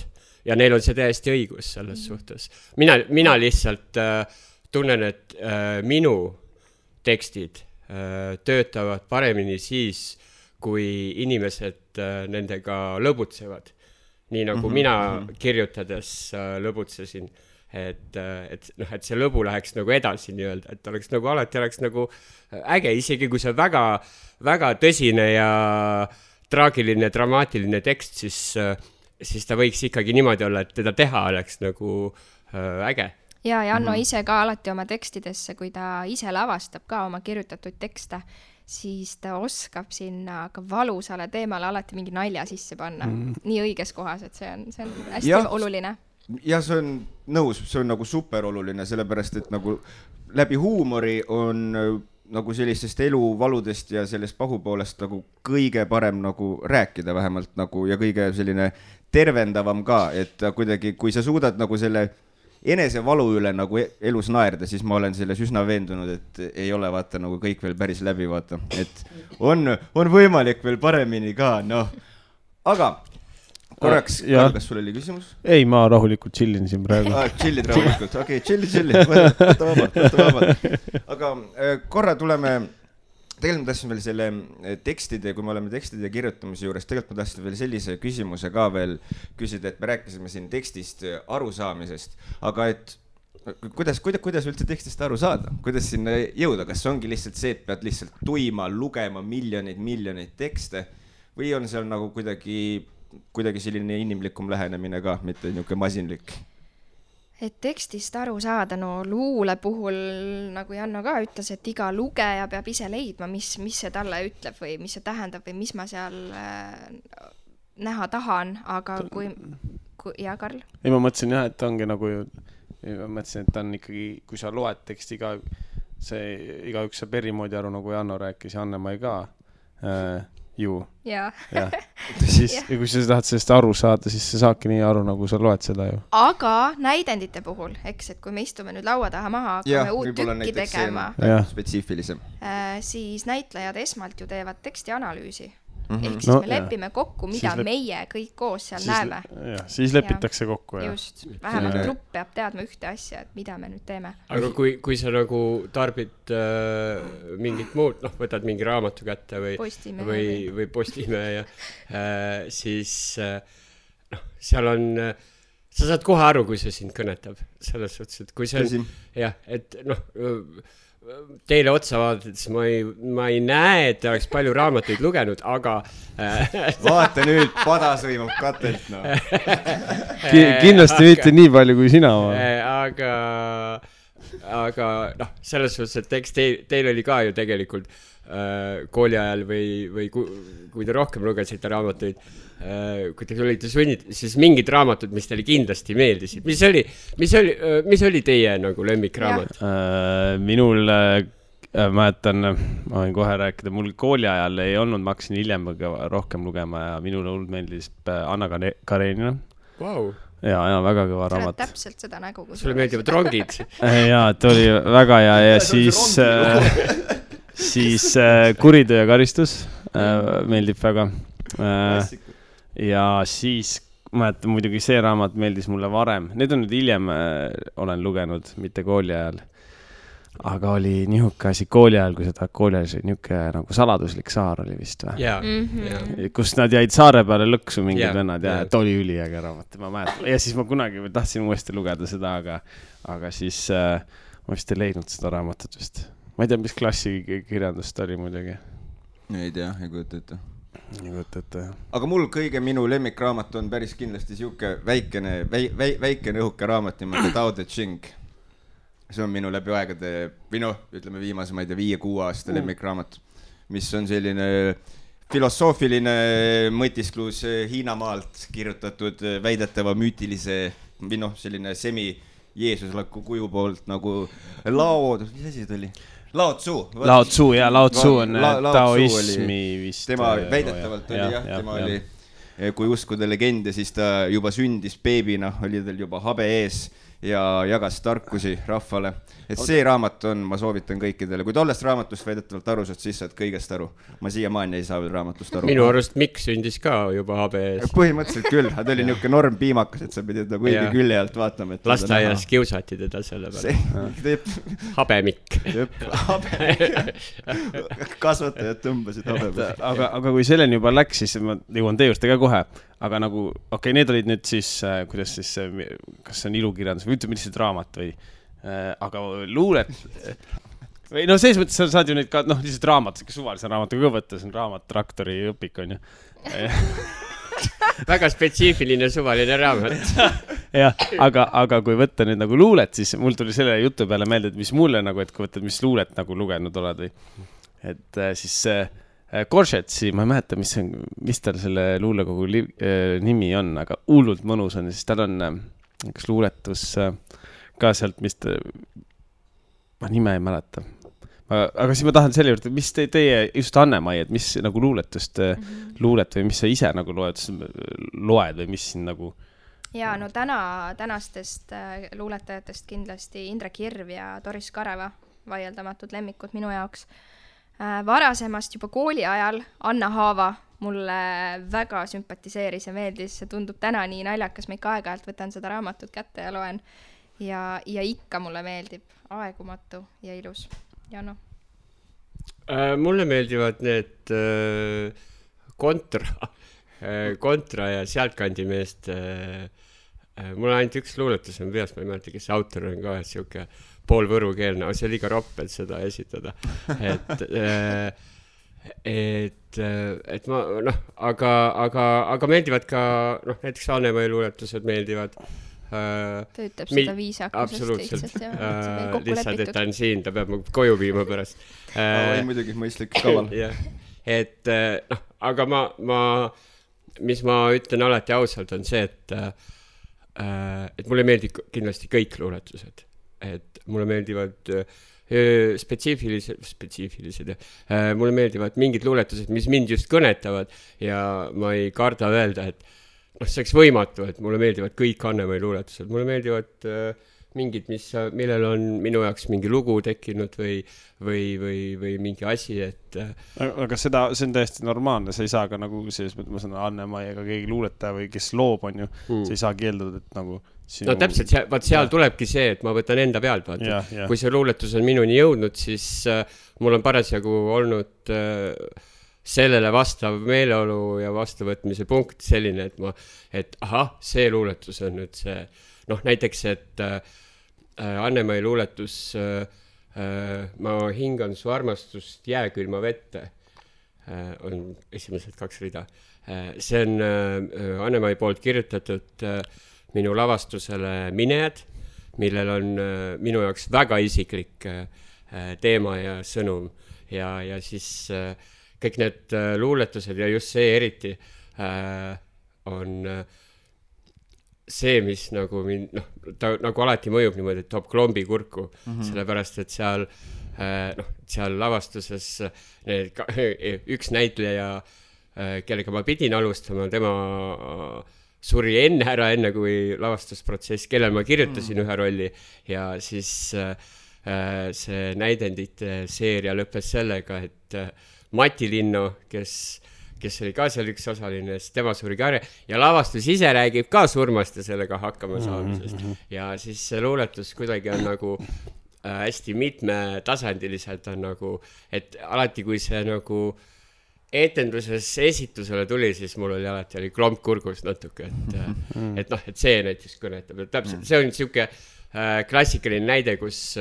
Ja neil on see täiesti õigus selles suhtes. Mina lihtsalt tunnen, et minu tekstid töötavad paremini siis, kui inimesed nendega lõbutsevad. Nii nagu mina kirjutades lõbutsesin, et see lõbu läheks nagu edasi nii-öelda, et oleks nagu alati oleks nagu äge, isegi kui see väga, väga tõsine ja traagiline, dramaatiline tekst, siis ta võiks ikkagi niimoodi olla, et teda teha oleks nagu äge. Ja Janno ise ka alati oma tekstidesse, kui ta ise lavastab ka oma kirjutatud tekste, siis ta oskab sinna ka valusale teemale alati mingi nalja sisse panna. Nii õiges kohas, et see on hästi oluline. Ja see on nõus, see on nagu super oluline, sellepärast, et nagu läbi huumori on nagu sellistest eluvaludest ja sellest pahupoolest nagu kõige parem nagu rääkida vähemalt nagu ja kõige selline tervendavam ka, et kuidagi, kui sa suudad nagu selle enesevalu üle nagu elus naerda, siis ma olen selles üsna veendunud, et ei ole vaata nagu kõik veel päris läbi vaata, et on võimalik veel paremini ka, noh. Aga korraks, kas sul oli küsimus? Ei, ma rahulikult chillin siin praegu. Chillid rahulikult, okei, chillid, võta vabalt. Aga korra tuleme, tegelikult ma tahtsin veel selle tekstide, kui me oleme tekstide kirjutamise juures, tegelikult ma tahtsin veel sellise küsimuse ka veel küsida, et me rääkisime siin tekstist arusaamisest, aga et kuidas üldse tekstist aru saada? Kuidas sinna jõuda? Kas ongi lihtsalt see, et pead lihtsalt tuima, lugema miljoneid tekste või on seal nagu kuidagi selline inimlikum lähenemine ka, mitte niisugune masinlik? Et tekstist aru saada, no luule puhul, nagu Janno ka ütles, et iga lugeja peab ise leidma, mis see talle ütleb või mis see tähendab või mis ma seal näha tahan, aga ja Karl? Ei, ma mõtlesin jah, et ongi nagu ma mõtlesin, et on ikkagi, kui sa loed teksti igaüks saab eri moodi aru, nagu Janno rääkis ja Anne-Mai ka ju. Ja. Siis, ja kui sa tahad sellest aru saada, siis sa saadki nii aru, nagu sa loed seda ju. Aga näidendite puhul, eks, et kui me istume nüüd laua taha maha, hakkame uut tükki tegema, spetsiifilisem. Siis näitlejad esmalt ju teevad teksti analüüsi. Ehk siis me lepime kokku, mida meie kõik koos seal näeme. Siis lepitakse kokku. Just, vähemalt grupp peab teadma ühte asja, et mida me nüüd teeme. Aga kui sa nagu tarbid mingit muud, võtad mingi raamatu kätte või Postimehe, siis seal on, sa saad kohe aru, kui see sind kõnetab. Selles suhtes, et kui see on, et teile otsa vaadates ma ei näe, et oleks palju raamatuid lugenud, aga vaata nüüd, padas võimab katelt, no. Kindlasti mitte nii palju kui sina. Aga selles suhtes, et eks teil oli ka ju tegelikult kooli ajal või kui te rohkem lugesite raamatuid, kui te olite sunnid, siis mingid raamatud, mis teile kindlasti meeldisid. Mis oli teie nagu lemmikraamat? Minul, mäletan, ma võin kohe rääkida, mul kooli ajal ei olnud, ma hakkasin hiljem rohkem lugema ja minule meeldis Anna Karenina. Wow. Ja väga kõva raamat. Täpselt seda nägu. Sulle meeldivad rongid? Jaa, et oli väga hea ja siis Kuritöö ja karistus meeldib väga. Ja siis mäletan muidugi see raamat meeldis mulle varem. Need on nüüd hiljem olen lugenud, mitte kooli ajal. Aga oli nihuke asi kooli ajal, kui seda kooli ajal nihuke nagu saladuslik saar oli vist või? Kus nad jäid saare peale lõksu mingid vennad ja et oli üliäge raamat. Ja siis ma kunagi tahtsin uuesti lugeda seda, aga siis ma vist ei leidnud seda raamatut vist. Ma ei tea, mis klassi kirjandust oli muidugi. Ei tea, ei kujuta ette. Aga mul minu lemmikraamat on päris kindlasti siuke väikene õhuke raamat nimelt Tao Te Ching. See on minu läbi aegade, ütleme viimase, ma ei tea, 5-6 aasta lemmikraamat, mis on selline filosoofiline mõtisklus Hiina maalt kirjutatud väidetava müütilise selline semi-jeesuslaku kuju poolt nagu mis asi ta oli? Lao Tzu on taoismi vist. Tema väidetavalt oli tema oli, kui uskuda legende, siis ta juba sündis beebina, oli tal juba habe ees ja jagas tarkusi rahvale. Et see raamat on, ma soovitan kõikidele. Kui tollest raamatust väidetavalt aru saad, siis saad kõigest aru. Ma siiamaani ei saa veel raamatust aru. Minu arust Mikk sündis ka juba habe ees. Põhimõtteliselt küll, ta oli niuke norm piimakas, et sa pidid ta kuigi külje alt vaatama. Lasteaias kiusati teda selle peale. Habe Mikk. Kasvatajad tõmbasid habe peale. Aga kui selleni juba läks, siis ma jõuan teie juurde ka kohe. Aga nagu, need olid nüüd siis, kuidas siis, kas see on ilukirjandus või ütleme lihtsalt raamat või, aga luulet, või selles mõttes sa saad ju neid ka, lihtsalt raamat, suvalise raamatuga ka võtta, see on raamat, traktori õpik on ju. Väga spetsiifiline suvaline raamat. Jah, aga kui võtta nüüd nagu luulet, siis mul tuli selle jutu peale meelde, et mis mulle nagu, et kui võtta, mis luulet nagu lugenud oled või, et siis Koršetsi, ma ei mäleta, mis tal selle luulekogu nimi on, aga hullult mõnus on, siis tal on üks luuletus ka sealt, mis ma nime ei mäleta. Aga siis ma tahan selle juurde, mis teie just Anne-Mai, et mis nagu luulet või mis sa ise nagu loed või mis siin nagu ja no tänastest luuletajatest kindlasti Indrek Hirv ja Doris Kareva, vaieldamatult lemmikud minu jaoks. Varasemast juba kooli ajal Anna Haava mulle väga sümpatiseeris ja meeldis, see tundub täna nii naljakas, ma ikka aeg-ajalt võtan seda raamatut kätte ja loen ja ikka mulle meeldib aegumatu ja ilus. Janno? Mulle meeldivad need kontra ja sealtkandi meest. Mul on ainult üks luuletus on peas, ma ei mäleta, kes autor on ka siuke poolvõrukeelne, aga see oli liiga roppel seda esitada. Et ma, aga meeldivad ka, näiteks Anne-Mai luuletused meeldivad. Töötab seda viisakusest lihtsalt. Lihtsalt, et ta on siin, ta peab koju viima pärast. Muidugi mõistlik kaval. Et, aga mis ma ütlen alati ausalt on see, et mulle meeldib kindlasti kõik luuletused. Et mulle meeldivad spetsiifilised. Mulle meeldivad mingid luuletused, mis mind just kõnetavad ja ma ei karda öelda, et see oleks võimatu, et mulle meeldivad kõik Anne-Mai luuletused. Mulle meeldivad mingid, millel on minu jaoks mingi lugu tekkinud või mingi asi, et... Aga see on täiesti normaalne, sa ei saa ka nagu selles mõttes, ma sanon Anne-Mai ega keegi luuletaja või kes loob on ju, sa ei saa keeldada, et nagu... No täpselt, vaat seal tulebki see, et ma võtan enda pealt, vaata. Kui see luuletus on minuni jõudnud, siis mul on parasjagu olnud sellele vastav meeleolu ja vastuvõtmise punkt selline, et see luuletus on nüüd see, näiteks, et Anne-Mai luuletus ma hingan su armastust jääkülma vette on esimesed 2 rida. See on Anne-Mai poolt kirjutatud minu lavastusele Minejad, millel on minu jaoks väga isiklik teema ja sõnum ja siis kõik need luuletused ja just see eriti on see, mis nagu ta nagu alati mõjub niimoodi, et toob klombi kurku, sellepärast, et seal lavastuses üks näitleja, kellega ma pidin alustama, tema suri enne kui lavastusprotsess, kellel ma kirjutasin ühe rolli ja siis see näidendite seeria lõppes sellega, et Mati Linno, kes oli ka seal üks osaline, tema suri ka ja lavastus ise räägib ka surmast ja sellega hakkama saamisest. Ja siis see luuletus kuidagi on nagu hästi mitmetasandiliselt on nagu, et alati kui see nagu etenduses esitusele tuli, siis mul oli alati klomp kurgus natuke, et see näiteks kõnetab. Täpselt, see on siuke klassikaline näide, kus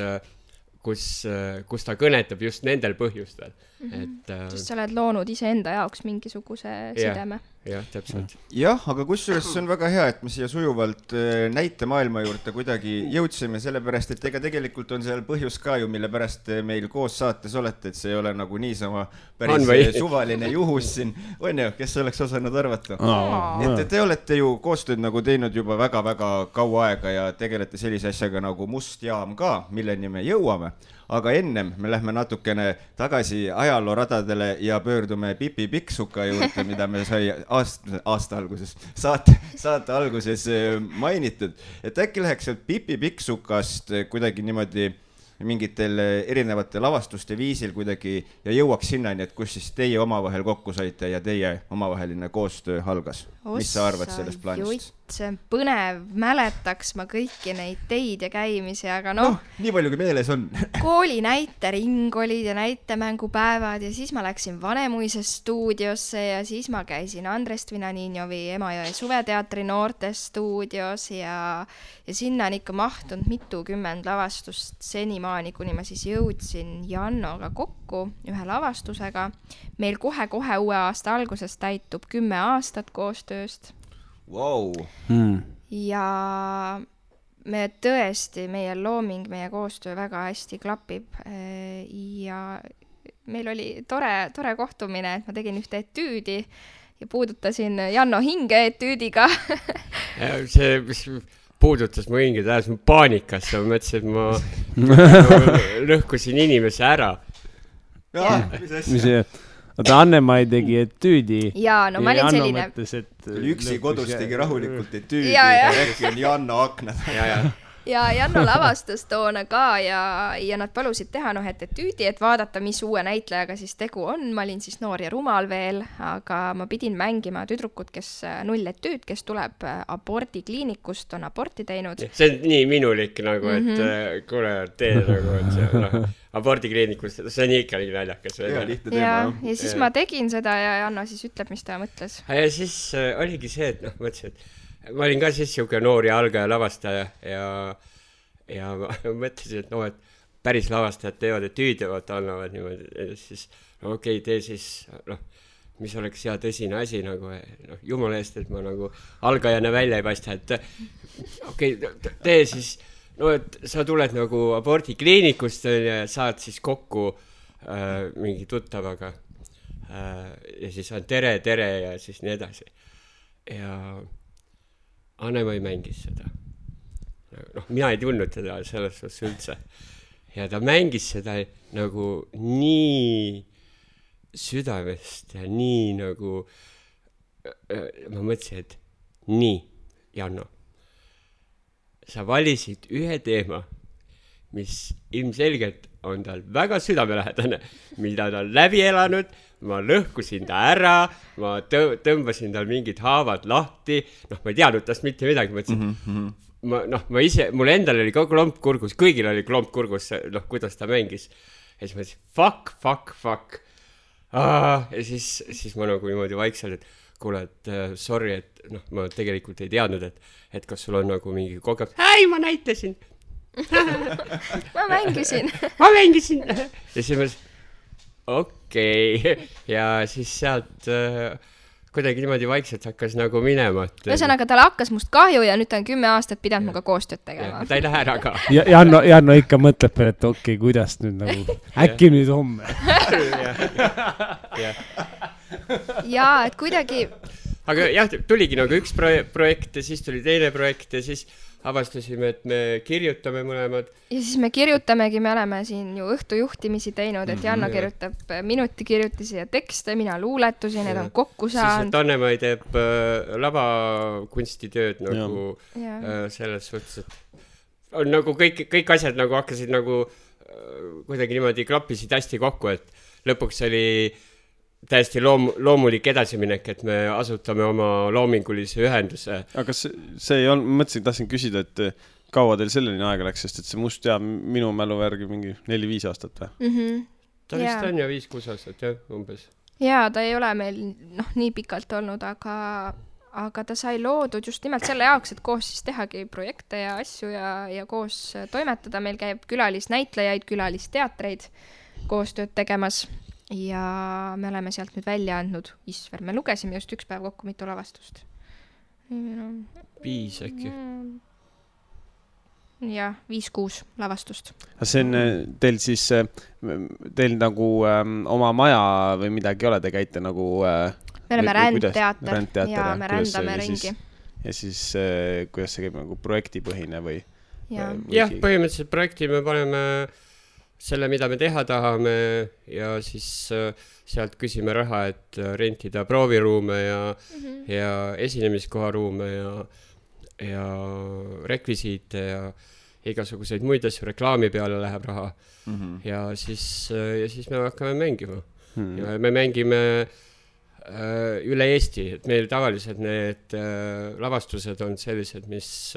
ta kõnetab just nendel põhjustel. Sest sa oled loonud iseenda jaoks mingisuguse sideme. Jah, täpselt. Jah, aga kusjuures see on väga hea, et me siia sujuvalt näite maailma juurde kuidagi jõudsime, sellepärast, et ega tegelikult on seal põhjus ka ju, mille pärast meil koos saates olete, et see ei ole nagu niisama päris suvaline juhus siin. On ju, kes oleks osanud arvata? Et te olete ju koostööd nagu teinud juba väga-väga kaua aega ja tegelete sellise asjaga nagu Must jaam ka, milleni me jõuame. Aga ennem me lähme natukene tagasi ajalooradadele ja pöördume Pipi Pikksuka juurde, mida me sai aasta alguses, saate alguses mainitud. Et äkki läheks sealt Pipi Pikksukast kuidagi niimoodi mingitel erinevate lavastuste viisil kuidagi ja jõuaks sinnani, et kus siis teie omavahel kokku saite ja teie omavaheline koostöö algas. Mis sa arvad sellest plaanist? See on põnev, mäletaks ma kõiki neid teid ja käimisi, aga nii palju kui meeles on. Kooli näitering olid ja näitemängupäevad ja siis ma läksin Vanemuise stuudiosse ja siis ma käisin Andres Tvinaninjovi Emajõe suveteatri noortes stuudios ja sinna on ikka mahtunud mitukümmend lavastust senimaani, kuni ma siis jõudsin Jannoga kokku ühe lavastusega. Meil kohe uue aasta alguses täitub 10 aastat koostööst. Wow. Ja me tõesti, meie looming, meie koostöö väga hästi klapib ja meil oli tore kohtumine, et ma tegin ühte etüüdi ja puudutasin Janno hinge etüüdiga. See, mis puudutas mu hinge, tähes mu paanikasse, ma mõtlesin, et ma lõhkusin inimese ära. Mis asja? oota, Anne-Mai tegi etüüdi. Jaa, no ma olin selline. Üksi kodus tegi rahulikult etüüdi, äkki on Janno aknad. Ja Janno lavastas toona ka ja nad palusid teha et etüüdi, et vaadata, mis uue näitlejaga siis tegu on. Ma olin siis noor ja rumal veel, aga ma pidin mängima tüdrukut, kes nulletüüd, kes tuleb abordikliinikust, on aborti teinud. See on nii minulik nagu, et kuule, tee nagu, et see abordikliinikust, see on ikka nii naljakas. Ja siis ma tegin seda ja Janno siis ütleb, mis ta mõtles. Ja siis oligi see, et mõtlesin, et ma olin ka siis siuke noor ja algaja lavastaja ja ma mõtlesin, et et päris lavastajad teevad etüüde, annavad niimoodi, ja siis okei, tee siis, mis oleks hea tõsine asi nagu, jumala eest, et ma nagu algajana välja ei paista, et okei, tee siis, et sa tuled nagu abordikliinikust ja saad siis kokku mingi tuttavaga ja siis on tere ja siis nii edasi. Ja Anne-Mai mängis seda. Mina ei tundnud teda selles suhtes üldse. Ja ta mängis seda nagu nii südamest ja nii nagu ma mõtlesin, et nii, Janno, sa valisid ühe teema, mis ilmselgelt on tal väga südamelähedane, mida ta on läbi elanud, ma lõhkusin ta ära, ma tõmbasin tal mingid haavad lahti, ma ei teadnud tast mitte midagi, mõtlesin, ma ise, mul endal oli ka klomp kurgus, kõigil oli klomp kurgus, kuidas ta mängis. Ja siis ma ütlesin, fuck. Ja siis ma nagu niimoodi vaikselt, et kuule, et sorry, et ma tegelikult ei teadnud, et kas sul on nagu mingi kogemus. Ei, ma näitasin. ma mängisin. Ja siis ma okei. Ja siis sealt kuidagi niimoodi vaikselt hakkas nagu minema. Ühesõnaga, tal hakkas must kahju ja nüüd ta on 10 aastat pidanud muga koostööd tegema. Ta ei lähe ära ka. Janno ikka mõtleb, et okei, kuidas nüüd nagu, äkki nüüd homme. Ja, et kuidagi... Aga jah, tuligi nagu üks projekt ja siis tuli teine projekt ja siis avastasime, et me kirjutame mõlemad. Ja siis me kirjutamegi, me oleme siin ju õhtujuhtimisi teinud, et Janno kirjutab minutikirjutisi ja tekste, mina luuletusi, need on kokku saanud. Siis, et Anne-Mai teeb lavakunstitööd nagu selles suhtes, et on nagu kõik asjad nagu hakkasid nagu kuidagi niimoodi klappisid hästi kokku, et lõpuks oli täiesti loomulik edasiminek, et me asutame oma loomingulise ühenduse. Aga see ei olnud, mõtlesin, tahtsin küsida, et kaua teil selleni aega läks, sest et see must jääb minu mälu värgi mingi 4-5 aastat või? Ta vist on ja 5-6 aastat, jah, umbes. Jaa, ta ei ole meil nii pikalt olnud, aga ta sai loodud just nimelt selle jaoks, et koos siis tehagi projekte ja asju ja koos toimetada. Meil käib külalisnäitlejaid, külalisteatreid koostööd tegemas. Ja me oleme sealt nüüd välja andnud Isver. Me lugesime just üks päev kokku mitu lavastust. 5 äkki. Jah, 5-6 lavastust. See on teil siis, teil nagu oma maja või midagi ole, te käite nagu... Me oleme rändteater ja me rändame ringi. Ja siis kuidas see käib nagu projektipõhine või? Jah, põhimõtteliselt projekti me paneme... selle, mida me teha tahame ja siis sealt küsime raha, et rentida prooviruume ja esinemiskoharuume ja rekvisiite ja igasuguseid muid asju, reklaami peale läheb raha. Ja siis me hakkame mängima. Ja me mängime üle Eesti, et meil tavaliselt need lavastused on sellised, mis...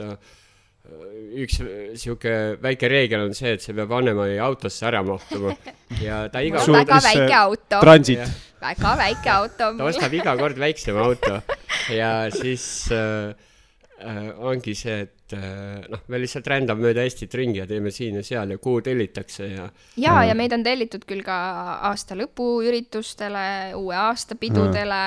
üks siuke väike reegel on see, et see peab Anne-Mai autosse ära mahtuma. Ja ta iga kord... Väga väike auto. Transit. Väga väike auto. Ta ostab iga kord väiksema auto. Ja siis ongi see, et me lihtsalt rändame mööda Eestit ringi ja teeme siin ja seal ja kuhu tellitakse. Ja meid on tellitud küll ka aasta lõpu üritustele, uue aasta pidudele,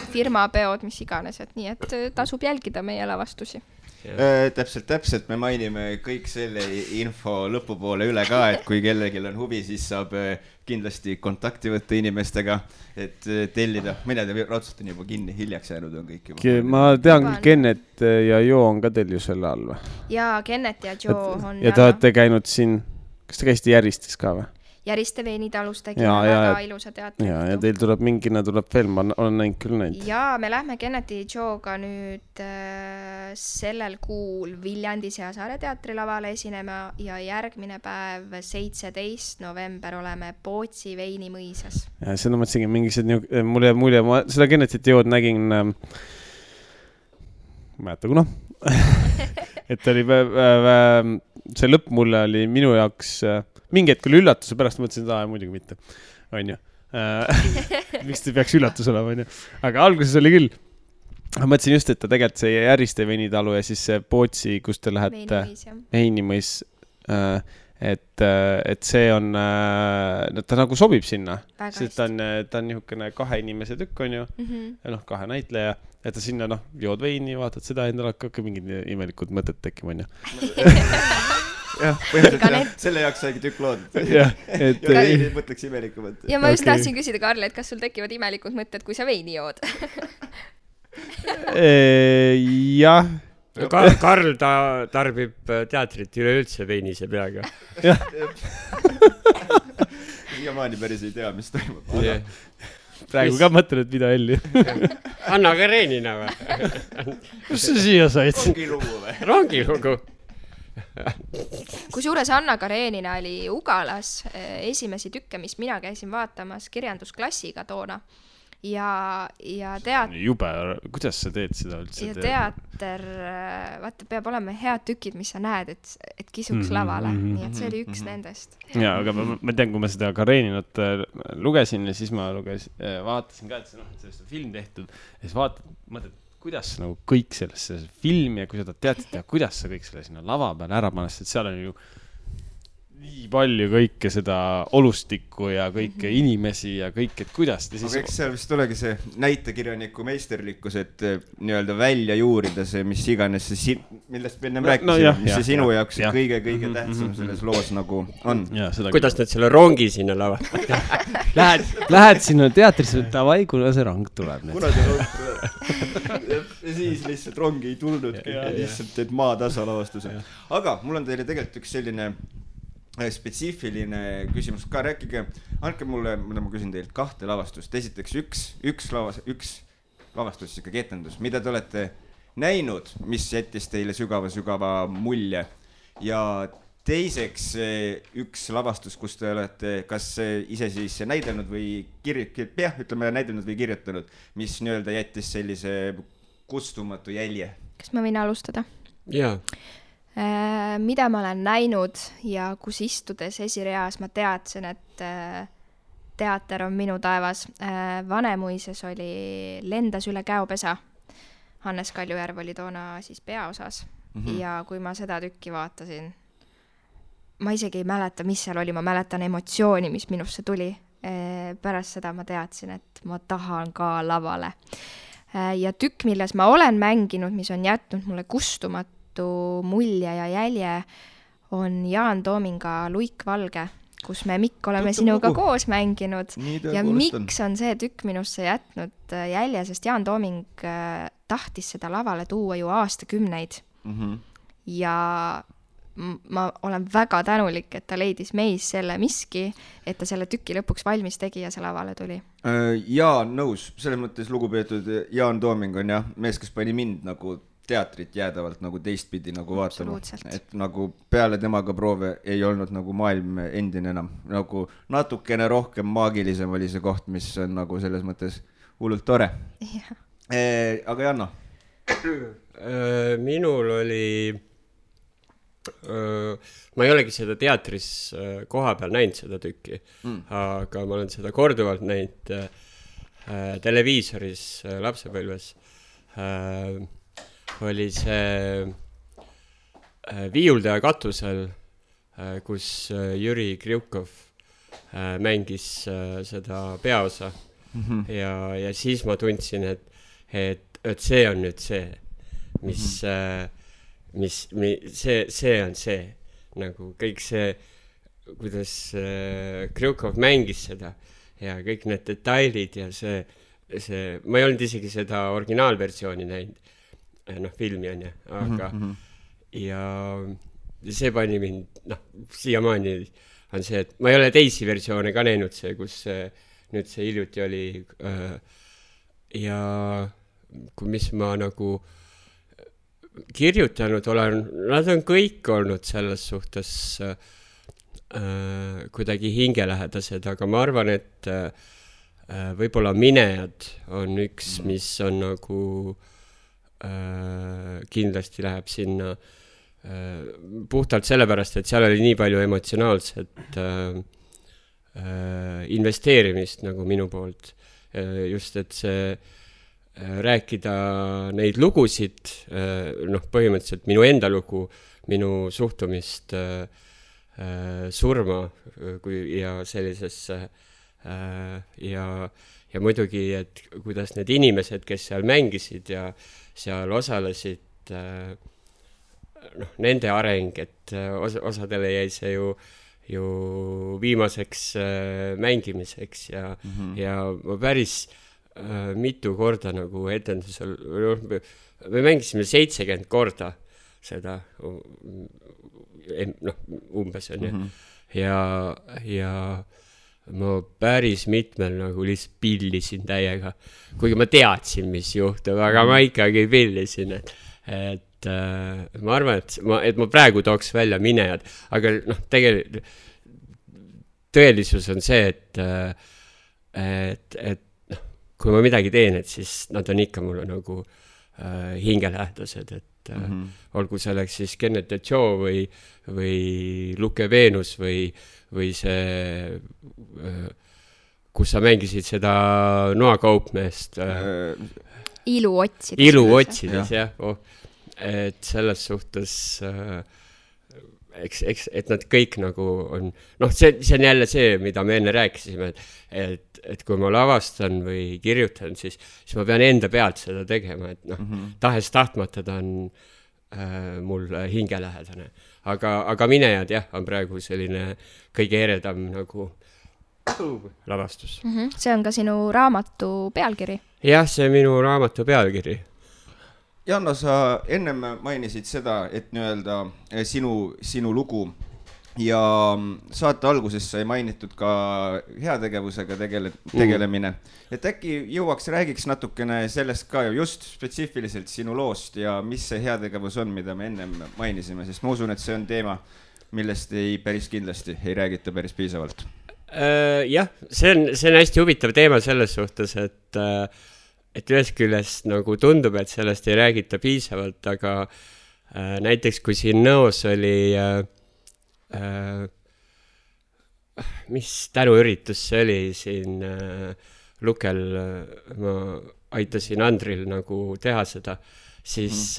firmapeod, mis iganes. Et nii, et tasub jälgida meie lavastusi. Täpselt, me mainime kõik selle info lõpupoole üle ka, et kui kellelgi on huvi, siis saab kindlasti kontakti võtta inimestega, et tellida. Mina raudselt on juba kinni, hiljaks jäänud on kõik juba. Ma tean küll, Kennet ja Jo on ka teil ju selle all või? Jaa, Kennet ja Jo on... Ja te olete käinud siin, kas te käisite Järvistes ka või? Järiste Veinitalus tegime väga ilusa teatri. Ja teil tuleb mingina tuleb veel, ma olen näinud küll neid. Ja me lähme Kennedy Joe'ga nüüd sellel kuul Viljandi Seasaare teatrilavale esinema ja järgmine päev 17. november oleme Pootsi Veinimõisas. Ja seda mõtlesingi mingised, mulle mulje, ma seda Kennedy Joe'd nägin, mäleta kuna, et oli see lõpp mulle oli minu jaoks mingi hetk oli üllatuse pärast, mõtlesin, et muidugi mitte, on ju. Miks te peaks üllatus olema, on ju. Aga alguses oli küll. Ma mõtlesin just, et ta tegelikult see Järiste Veinitalu ja siis see Pootsi, kus te lähete Veinimõis, et see on, ta nagu sobib sinna. Sest ta on niisugune 2 inimese tükk, on ju, ja 2 näitleja, et ta sinna, jood veini, vaatad seda, endal hakkab mingid imelikud mõtted tekkima, on ju. Jah, põhimõtteliselt selle jaoks saigi tükk loodud. Ja veini mõtleks imelikumad. Ja ma just tahtsin küsida, Karl, et kas sul tekivad imelikud mõtted, kui sa veini jood? Jah. Karl tarbib teatrit üleüldse veinise peaga. Jah. Siiamaani päris ei tea, mis toimub. Praegu ka mõtlen, et mida Elli. Anna Karenina või? Kus sa siia said? Rongilugu või? Rongilugu. Kusjuures Anna Karenina oli Ugalas esimesi tükke, mis mina käisin vaatamas kirjandusklassiga toona. Ja Jube, kuidas sa teed seda üldse? Ja teater, vaata, peab olema head tükid, mis sa näed, et kisuks lavale. Nii et see oli üks nendest. Ja, aga ma tean, kui ma seda Kareninat lugesin ja siis ma vaatasin ka, et sellest on film tehtud ja siis mõtled, kuidas nagu kõik sellesse filmi ja kui seda teatrit teha, kuidas sa kõik selle sinna lava peal ära panest, et seal on ju nii palju kõike seda olustikku ja kõike inimesi ja kõik, et kuidas te siis... Aga eks seal vist olegi see näitekirjaniku meisterlikkus, et nii-öelda välja juurida see, mis iganes see, millest me ennem rääkisime, mis see sinu jaoks kõige tähtsam selles loos nagu on. Kuidas nad selle rongi sinna lavad? Lähed sinna teatrisse, davai, kuna see rong tuleb. Kuna see rong tuleb. Ja siis lihtsalt rongi ei tulnud, lihtsalt teed maatasa lavastuse. Aga mul on teile tegelikult üks selline spetsiifiline küsimus ka, rääkige, andke mulle, mida ma küsin teilt, 2 lavastust. Esiteks üks lavastus, ikka etendus, mida te olete näinud, mis jättis teile sügava mulje. Ja teiseks üks lavastus, kus te olete kas ise siis näidelnud või näidelnud või kirjutanud, mis nii-öelda jättis sellise kustumatu jälje. Kas ma võin alustada? Jaa. Mida ma olen näinud ja kus istudes esireas ma teadsin, et teater on minu taevas. Vanemuises oli Lendas üle käopesa. Hannes Kaljujärv oli toona siis peaosas. Ja kui ma seda tükki vaatasin, ma isegi ei mäleta, mis seal oli, ma mäletan emotsiooni, mis minusse tuli. Pärast seda ma teadsin, et ma tahan ka lavale. Ja tükk, milles ma olen mänginud, mis on jätnud mulle kustumatu mulje ja jälje, on Jaan Toominga Luik Valge, kus me Mikk oleme sinuga koos mänginud. Ja miks on see tükk minusse jätnud jälje, sest Jaan Tooming tahtis seda lavale tuua ju aastakümneid. Ja ma olen väga tänulik, et ta leidis meis selle miski, et ta selle tüki lõpuks valmis tegi ja see lavale tuli. Jaa, nõus. Selles mõttes lugupeetud Jaan Tooming on mees, kes pani mind nagu teatrit jäädavalt nagu teistpidi nagu vaatama. Et nagu peale temaga proove ei olnud nagu maailm endine enam. Nagu natukene rohkem maagilisem oli see koht, mis on nagu selles mõttes hullult tore. Aga Janno? Minul oli... ma ei olegi seda teatris koha peal näinud seda tükki, aga ma olen seda korduvalt näinud televiisoris lapsepõlves. Oli see Viiuldaja katusel, kus Jüri Kriukov mängis seda peaosa. Ja siis ma tundsin, et see on nüüd see, see on see, nagu kõik see, kuidas Kriukov mängis seda ja kõik need detailid ja see, ma ei olnud isegi seda originaalversiooni näinud, filmi on ja, aga ja see pani mind, siiamaani on see, et ma ei ole teisi versioone ka näinud, kus nüüd see hiljuti oli ja mis ma nagu kirjutanud olen, nad on kõik olnud selles suhtes kuidagi hingelähedased, aga ma arvan, et võib-olla Minejad on üks, mis on nagu kindlasti läheb sinna puhtalt sellepärast, et seal oli nii palju emotsionaalset investeerimist nagu minu poolt. Just, et see rääkida neid lugusid, põhimõtteliselt minu enda lugu, minu suhtumist surma ja sellisesse ja muidugi, et kuidas need inimesed, kes seal mängisid ja seal osalesid, nende areng, et osadele jäi see ju viimaseks mängimiseks ja ma päris mitu korda nagu etendusel, me mängisime 70 korda seda, umbes on ju, ja ma päris mitmel nagu lihtsalt pillisin täiega, kuigi ma teadsin, mis juhtub, aga ma ikkagi pillisin, et ma arvan, et ma praegu tooks välja Minejad, aga tegelikult tõelisus on see, et kui ma midagi teen, et siis nad on ikka mulle nagu hingelähedased, et olgu selleks siis Kenneth Joe või Luke Venus või see, kus sa mängisid seda noakaupmeest. Ilu otsides, jah. Et selles suhtes, et nad kõik nagu on, see on jälle see, mida me enne rääkisime, et kui ma lavastan või kirjutan, siis ma pean enda pealt seda tegema, et tahes tahtmata ta on mul hingelähedane. Aga Minejad jah, on praegu selline kõige eredam nagu lavastus. See on ka sinu raamatu pealkiri? Jah, see minu raamatu pealkiri. Janno, sa ennem mainisid seda, et nii-öelda sinu lugu ja saate alguses sai mainitud ka heategevusega tegelemine. Et äkki jõuaks, räägiks natukene sellest ka just spetsiifiliselt sinu loost ja mis see heategevus on, mida me ennem mainisime, sest ma usun, et see on teema, millest päris kindlasti ei räägita päris piisavalt. Jah, see on hästi huvitav teema selles suhtes, et ühest küljest nagu tundub, et sellest ei räägita piisavalt, aga näiteks kui siin Nõos oli mis tänuüritus see oli siin Lukel, ma aitasin Andril nagu teha seda, siis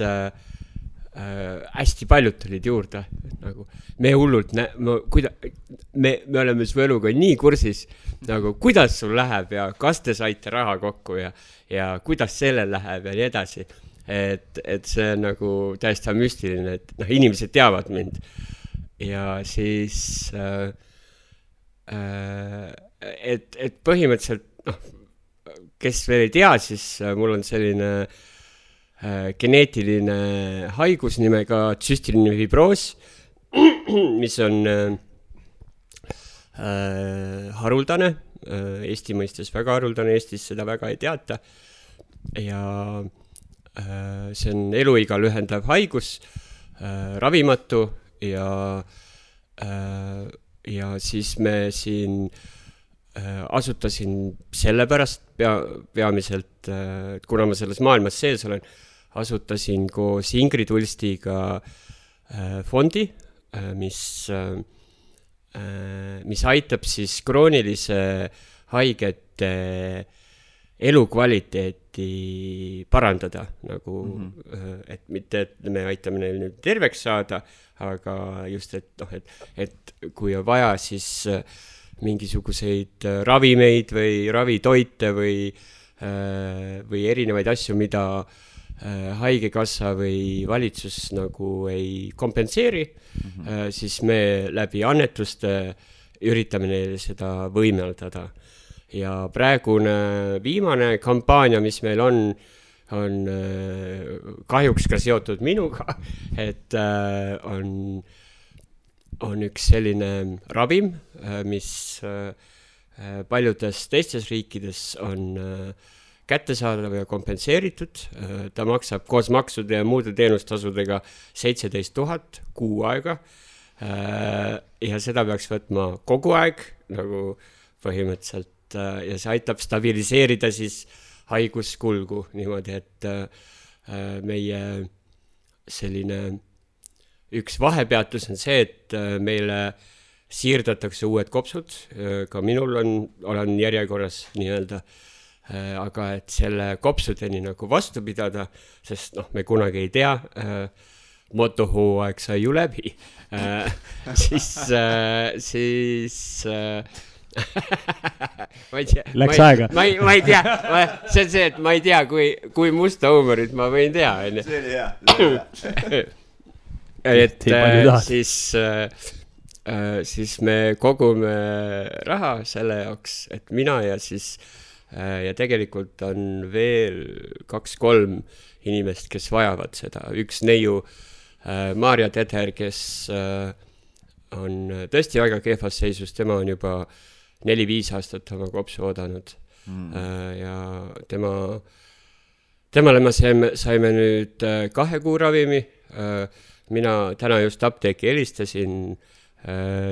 hästi paljud tulid juurde, nagu me hullult me oleme su eluga nii kursis, nagu kuidas sul läheb ja kas te saite raha kokku ja kuidas sellel läheb ja nii edasi, et see on nagu täiesti müstiline, et inimesed teavad mind ja siis et põhimõtteliselt kes veel ei tea, siis mul on selline geneetiline haigus nimega tsüstiline fibroos, mis on haruldane, Eesti mõistes väga haruldane, Eestis seda väga ei teata ja see on eluiga lühendav haigus, ravimatu ja siis me siin asutasin sellepärast peamiselt, kuna ma selles maailmas sees olen, asutasin koos Ingrid Ulstiga fondi, mis aitab siis kroonilise haigete elukvaliteeti parandada, nagu, et mitte, et me aitame neil nüüd terveks saada, aga just, et kui on vaja, siis mingisuguseid ravimeid või ravitoite või erinevaid asju, mida haigekassa või valitsus nagu ei kompenseeri, siis me läbi annetuste üritame neile seda võimeldada. Ja praegune viimane kampaania, mis meil on kahjuks ka seotud minuga, et on on üks selline ravim, mis paljudes teistes riikides on kättesaadav ja kompenseeritud. Ta maksab koos maksude ja muude teenustasudega 17 000 kuu aega. Ja seda peaks võtma kogu aeg, nagu põhimõtteliselt, ja see aitab stabiliseerida siis haiguskulgu niimoodi, et meie selline üks vahepeatus on see, et meile siirdatakse uued kopsud, ka minul olen järjekorras nii-öelda, aga et selle kopsudeni nagu vastu pidada, sest me kunagi ei tea, motohooaeg sai ju läbi, siis ma ei tea. Läks aega. Ma ei tea, see on see, et ma ei tea, kui musta huumorit ma võin teha. See oli hea. Et siis me kogume raha selle jaoks, et mina ja tegelikult on veel 2-3 inimest, kes vajavad seda. Üks neiu, Maarja Teder, kes on tõesti väga kehvas seisus, tema on juba 4-5 aastat oma kopsu oodanud. Ja temale me saime nüüd 2 kuu ravimi. Mina täna just apteeki helistasin,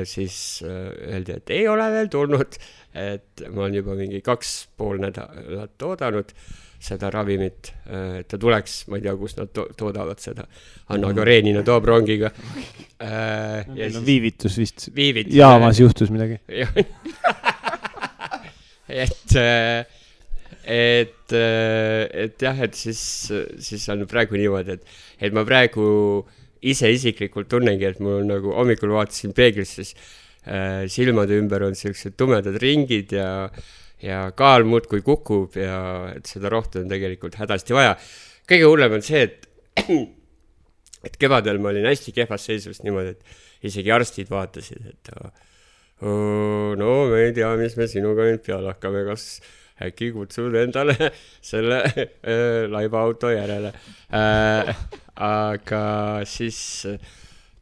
siis öeldi, et ei ole veel tulnud, et ma olen juba mingi 2,5 nädalat oodanud seda ravimit, et ta tuleks, ma ei tea, kus nad toodavad seda. Anna Karenina toob rongiga. Viivitus vist. Jaamas juhtus midagi. Et jah, et siis on praegu niimoodi, et ma praegu ise isiklikult tunnengi, et mul nagu hommikul vaatasin peeglisse, siis silmade ümber on sellised tumedad ringid ja kaal muudkui kukub ja et seda rohtu on tegelikult hädasti vaja. Kõige hullem on see, et kevadel ma olin hästi kehvas seisus niimoodi, et isegi arstid vaatasid, et no me ei tea, mis me sinuga nüüd peale hakkame, kas äkki kutsud endale selle laibaauto järele. Aga siis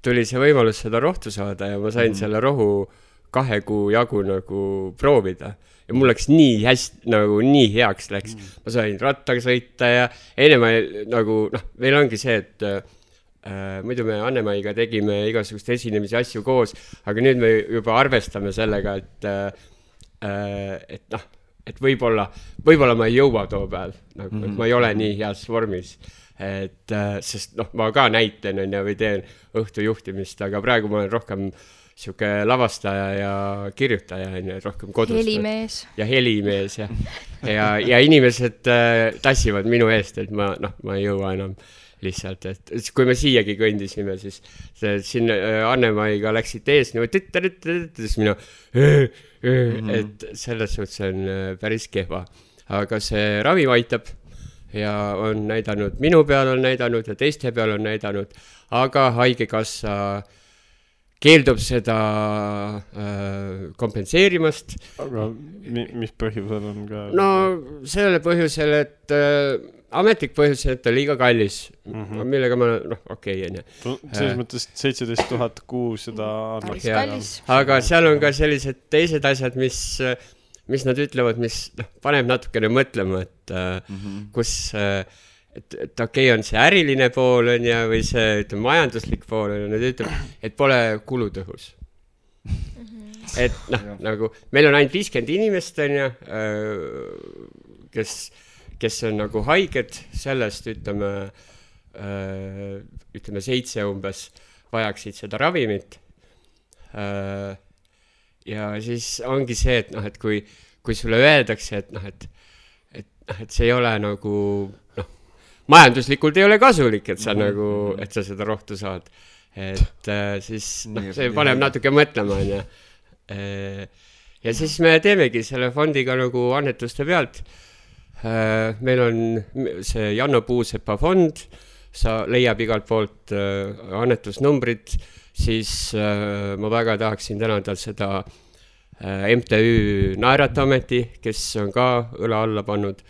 tuli see võimalus seda rohtu saada ja ma sain selle rohu 2 kuu jagu nagu proovida. Ja mul läks nii hästi, nagu nii heaks läks. Ma sain rattaga sõita ja enne ma nagu, meil ongi see, et muidu me Anne-Maiga tegime igasugust esinemisi asju koos, aga nüüd me juba arvestame sellega, et võib-olla ma ei jõua too päev, nagu, et ma ei ole nii heas vormis. Sest ma ka näitan või teen õhtujuhtimist, aga praegu ma olen rohkem siuke lavastaja ja kirjutaja, rohkem kodus. Helimees. Ja helimees, ja inimesed tassivad minu eest, et ma ei jõua enam lihtsalt, et kui me siiagi kõndisime, siis siin Anne-Maiga läksid ees, siis minu, et selles suhtes on päris kehva. Aga see ravim aitab ja on näidanud, minu peal on näidanud ja teiste peal on näidanud, aga haigekassa keeldub seda kompenseerimast. Aga mis põhjusel on ka? No sellele põhjusel, et ametlik põhjus, et on liiga kallis, millega ma, okei. Selles mõttes 17 000 kuu seda kallis. Aga seal on ka sellised teised asjad, mis nad ütlevad, mis paneb natukene mõtlema, et kus, et okei, on see äriline pool on ja, või see majanduslik pool on, nad ütleb, et pole kulutõhus. Et nagu meil on ainult 50 inimest on ja, kes on nagu haiged, sellest ütleme 7 umbes vajaksid seda ravimit. Ja siis ongi see, et kui sulle öeldakse, et see ei ole nagu, majanduslikult ei ole kasulik, et sa nagu, et sa seda rohtu saad. Et siis see paneb natuke mõtlema. Ja siis me teemegi selle fondiga nagu annetuste pealt. Meil on see Janno Puusepa fond, sa leiab igalt poolt annetusnumbrid, siis ma väga tahaksin tänada seda MTÜ Naeratameti, kes on ka õla alla pannud,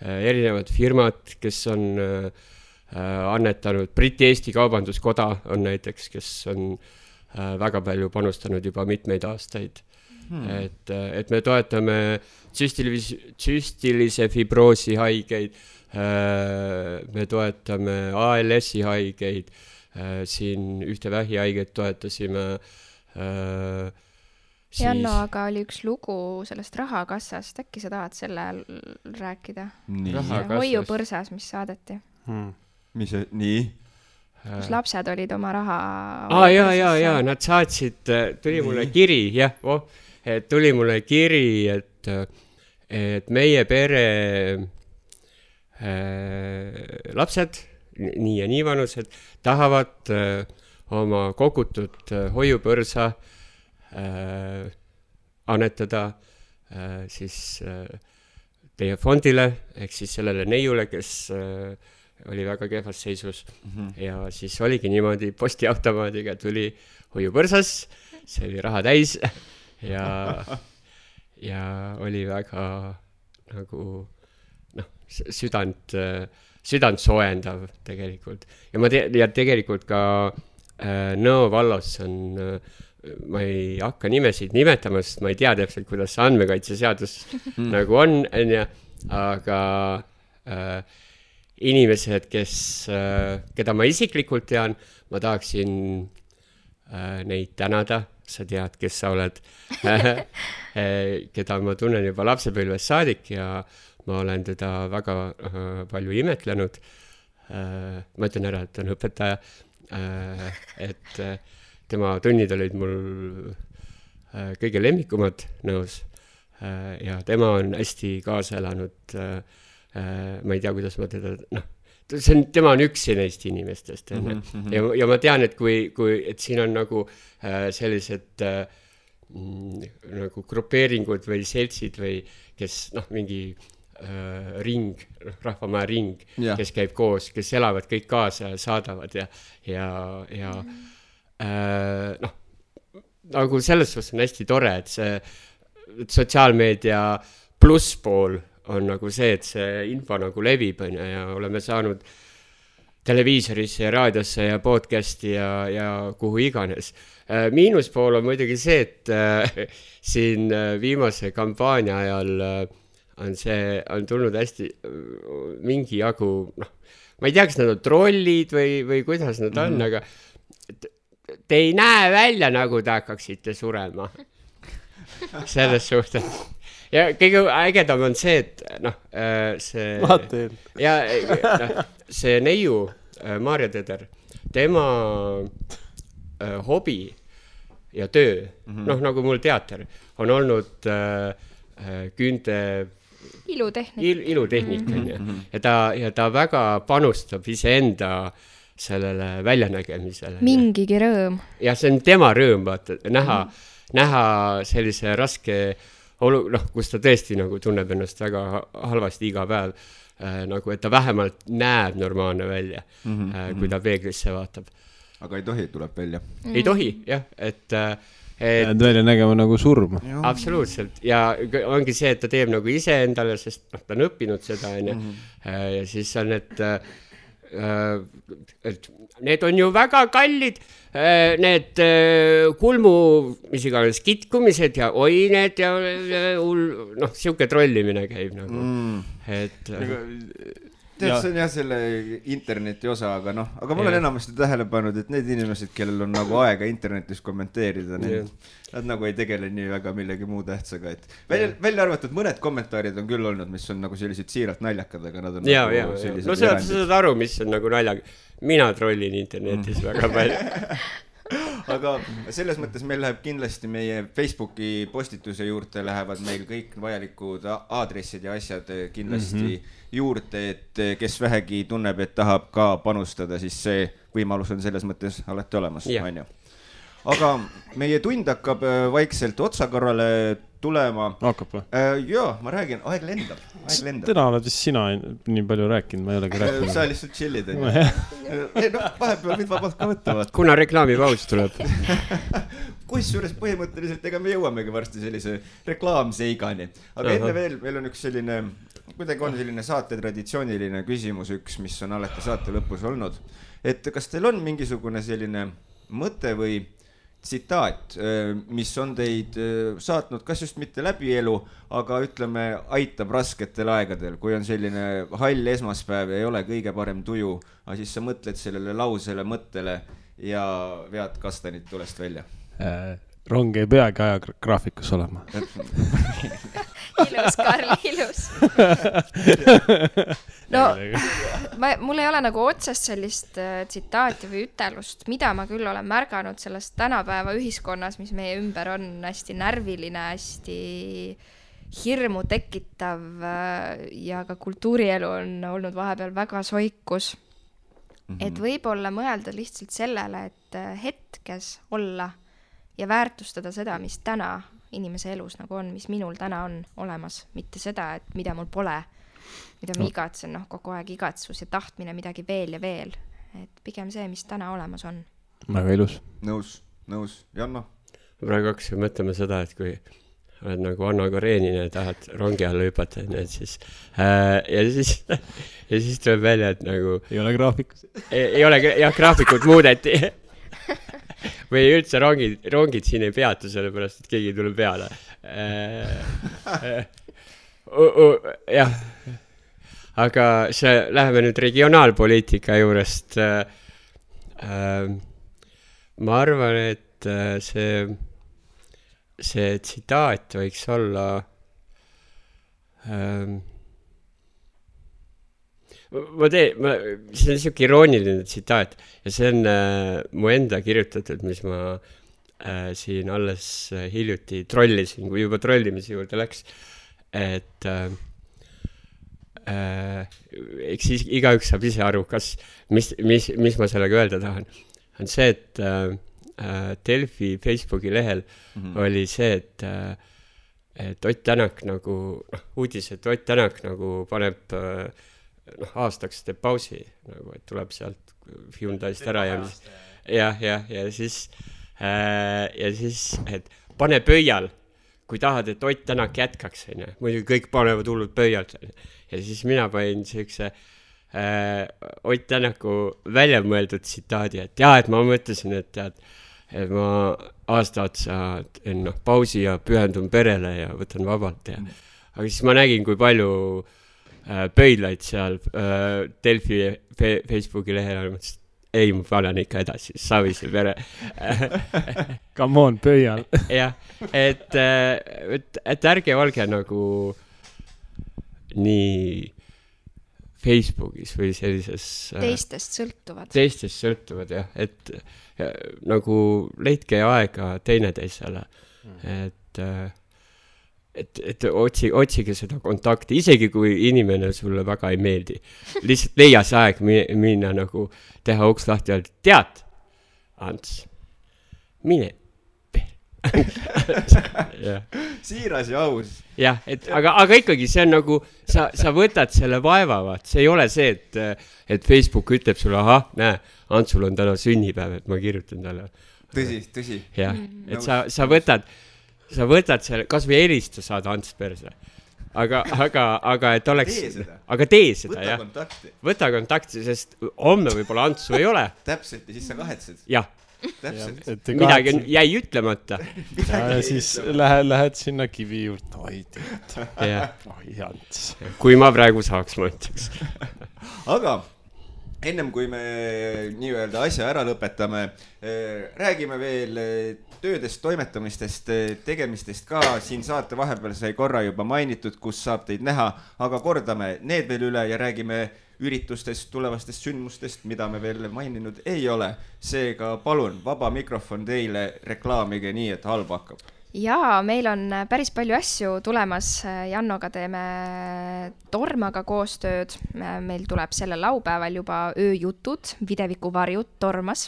erinevad firmad, kes on annetanud, Briti-Eesti Kaubanduskoda on näiteks, kes on väga palju panustanud juba mitmeid aastaid. Et me toetame tsüstilise fibroosi haigeid, me toetame ALS-i haigeid, siin ühte vähihaiget toetasime. Janno, aga oli üks lugu sellest rahakassast, äkki sa tahad selle rääkida? Hoiupõrsas, mis saadeti. Mis see, nii? Kus lapsed olid oma raha... Jaa, nad saatsid, tuli mulle kiri, tuli mulle kiri, et meie pere lapsed, nii ja nii vanused, tahavad oma kogutud hoiupõrsa annetada siis teie fondile, ehk siis sellele neiule, kes oli väga kehvas seisus. Ja siis oligi niimoodi, postiautomaadiga tuli hoiupõrsas, see oli raha täis ja oli väga nagu südant soojendav tegelikult. Ja tegelikult ka Nõo vallas on, ma ei hakka nimesid nimetama, sest ma ei tea täpselt, kuidas andmekaitseseadus nagu on, aga inimesed, keda ma isiklikult tean, ma tahaksin neid tänada, sa tead, kes sa oled, keda ma tunnen juba lapsepõlvest saadik ja ma olen teda väga palju imetlenud. Ma ütlen ära, et ta on õpetaja, et tema tunnid olid mul kõige lemmikumad Nõos ja tema on hästi kaasa elanud. Ma ei tea, kuidas ma teda, tema on üks neist inimestest. Ja ma tean, et et siin on nagu sellised nagu grupeeringud või seltsid või kes mingi ring, rahvamaja ring, kes käib koos, kes elavad kõik kaasa ja saadavad ja nagu selles suhtes on hästi tore, et see sotsiaalmeedia plusspool on nagu see, et see info nagu levib ja oleme saanud televiisorisse ja raadiosse ja podcasti ja kuhu iganes. Miinuspool on muidugi see, et siin viimase kampaania ajal on tulnud hästi mingi jagu, ma ei tea, kas nad on trollid või kuidas nad on, aga te ei näe välja, nagu te hakkaksite surema. Selles suhtes. Ja kõige ägedam on see, et see neiu, Maarja Teder, tema hobi ja töö, nagu mul teater, on olnud küünte ilutehnika. Ja ta väga panustab iseenda sellele väljanägemisele. Mingigi rõõm. Ja see on tema rõõm, vaata, näha sellise raske kus ta tõesti nagu tunneb ennast väga halvasti iga päev, nagu et ta vähemalt näeb normaalne välja, kui ta peeglisse vaatab. Aga ei tohi, tuleb välja. Ei tohi, jah, et välja nägema nagu surm. Absoluutselt, ja ongi see, et ta teeb nagu ise endale, sest ta on õppinud seda, ja siis on, et need on ju väga kallid, need kulmu, mis iganes kitkumised ja oi need ja siuke trollimine käib nagu, et see on jah selle interneti osa, aga aga ma olen enamasti tähele pannud, et need inimesed, kellel on nagu aega internetis kommenteerida, nad nagu ei tegele nii väga millegi muu tähtsaga, et välja arvatud mõned kommentaarid on küll olnud, mis on nagu sellised siiralt naljakad, aga nad on nagu sellised no sa saad aru, mis on nagu naljag. Mina trollin internetis väga palju. Aga selles mõttes meil läheb kindlasti meie Facebooki postituse juurde lähevad meil kõik vajalikud aadressid ja asjad kindlasti juurde, et kes vähegi tunneb, et tahab ka panustada, siis see võimalus on selles mõttes alati olemas. Aga meie tund hakkab vaikselt otsakorrale tulema. Hakkab või? Jaa, ma räägin, aeg lendab. Täna oled vist sina nii palju rääkinud, ma ei olegi rääkinud. Sa lihtsalt chillid. Vahepeal võid vabalt ka võtta. Kuna reklaamipaus tuleb. Kusjuures põhimõtteliselt, ega me jõuamegi varsti sellise reklaamseigani. Aga enne veel, meil on üks selline, kuidagi on selline saate traditsiooniline küsimus üks, mis on alati saate lõpus olnud. Et kas teil on mingisugune selline mõte või tsitaat, mis on teid saatnud kas just mitte läbi elu, aga ütleme, aitab rasketel aegadel, kui on selline hall esmaspäev ja ei ole kõige parem tuju, aga siis sa mõtled sellele lausele, mõttele ja vead kastanid tulest välja. Rong ei peagi ajagraafikus olema. Ilus, Karl, ilus. No, mul ei ole nagu otsest sellist tsitaati või ütelust, mida ma küll olen märganud sellest tänapäeva ühiskonnas, mis meie ümber on hästi närviline, hästi hirmu tekitav ja ka kultuurielu on olnud vahepeal väga soikus. Et võib-olla mõelda lihtsalt sellele, et hetkes olla ja väärtustada seda, mis täna inimese elus nagu on, mis minul täna on olemas, mitte seda, et mida mul pole, mida ma igatsen, kogu aeg igatsus ja tahtmine midagi veel ja veel. Et pigem see, mis täna olemas on. Väga ilus. Nõus. Janno? Praegu hakkasin mõtlema seda, et kui oled nagu Anno Karenina ja tahad rongi alla hüpata, ja siis tuleb välja, et nagu ei ole graafikus. Ei ole, jah, graafikud muudeti. Või üldse rongid siin ei peatu, sellepärast, et keegi tuleb peale. Jah. Aga läheme nüüd regionaalpoliitika juurest. Ma arvan, et see tsitaat võiks olla see on niisugune irooniline tsitaat ja see on mu enda kirjutatud, mis ma siin alles hiljuti trollisin, kui juba trollimise juurde läks, et eks siis igaüks saab ise aru, mis ma sellega öelda tahan. On see, et Delfi Facebooki lehel oli see, et Ott Tänak nagu, uudis, et Ott Tänak nagu paneb aastaks teeb pausi, nagu, et tuleb sealt Hyundai'st ära ja siis, et pane pöial, kui tahad, et Ott Tänak jätkaks, muidugi kõik panevad hullud pöialt, ja siis mina panin sellise Ott Tänaku väljamõeldud tsitaadi, et et ma mõtlesin, et ma aasta otsa pausi ja pühendun perele ja võtan vabalt aga siis ma nägin, kui palju pöidlaid seal Delfi Facebooki lehel, ei, ma panen ikka edasi, Savise pere. Come on, pöial. Jah, et ärge olge nagu nii Facebookis või sellises teistest sõltuvad, jah, et nagu leidke aega teineteisele, et otsige seda kontakti, isegi kui inimene sulle väga ei meeldi. Lihtsalt leia see aeg minna nagu teha uks lahti ja tead, Ants, mine siiras ja aus. Jah, aga ikkagi see on nagu, sa võtad selle vaevavad, see ei ole see, et Facebook ütleb sulle, näe, Antsul on täna sünnipäev, et ma kirjutan talle. Tõsi. Jah, et sa võtad selle, kas või helista saad Ants perse. Aga et oleks... Tee seda, Võta kontakti, sest homme võib-olla Antsu ei ole. Täpselt, ja siis sa kahetsed. Jah. Midagi jäi ütlemata. Ja siis lähed sinna kivi juurde. Oi, Ants. Kui ma praegu saaks, ma ütleks. Aga ennem kui me nii-öelda asja ära lõpetame, räägime veel töödest, toimetamistest, tegemistest ka. Siin saate vahepeal sai korra juba mainitud, kus saab teid näha, aga kordame need veel üle ja räägime üritustest, tulevastest sündmustest, mida me veel maininud ei ole. Seega palun, vaba mikrofon teile, reklaamige nii, et halb hakkab. Jaa, meil on päris palju asju tulemas. Jannoga teeme Tormaga koostööd. Meil tuleb selle laupäeval juba ööjutud, videviku varjud Tormas.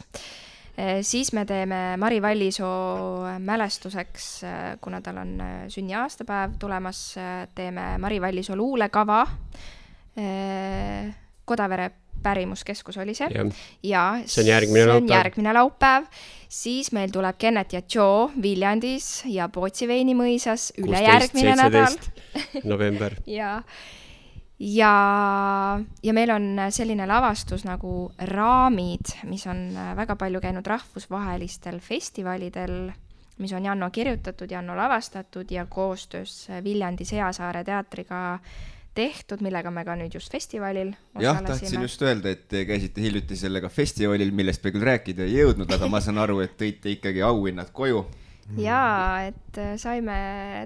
Siis me teeme Mari Vallisoo mälestuseks, kuna tal on sünniaastapäev tulemas, teeme Mari Vallisoo luulekava. Kodavere pärimuskeskus oli see. Ja see on järgmine laupäev. Siis meil tuleb Kennet ja Joe Viljandis ja Pootsi Veini mõisas ülejärgmine nädal. november. ja meil on selline lavastus nagu Raamid, mis on väga palju käinud rahvusvahelistel festivalidel, mis on Janno kirjutatud, Janno lavastatud ja koostöös Viljandi Seasaare teatriga tehtud, millega me ka nüüd just festivalil osalesime. Tahtsin just öelda, et te käisite hiljuti sellega festivalil, millest me küll rääkida ei jõudnud, aga ma saan aru, et tõite ikkagi auhinnad koju. Jaa, et saime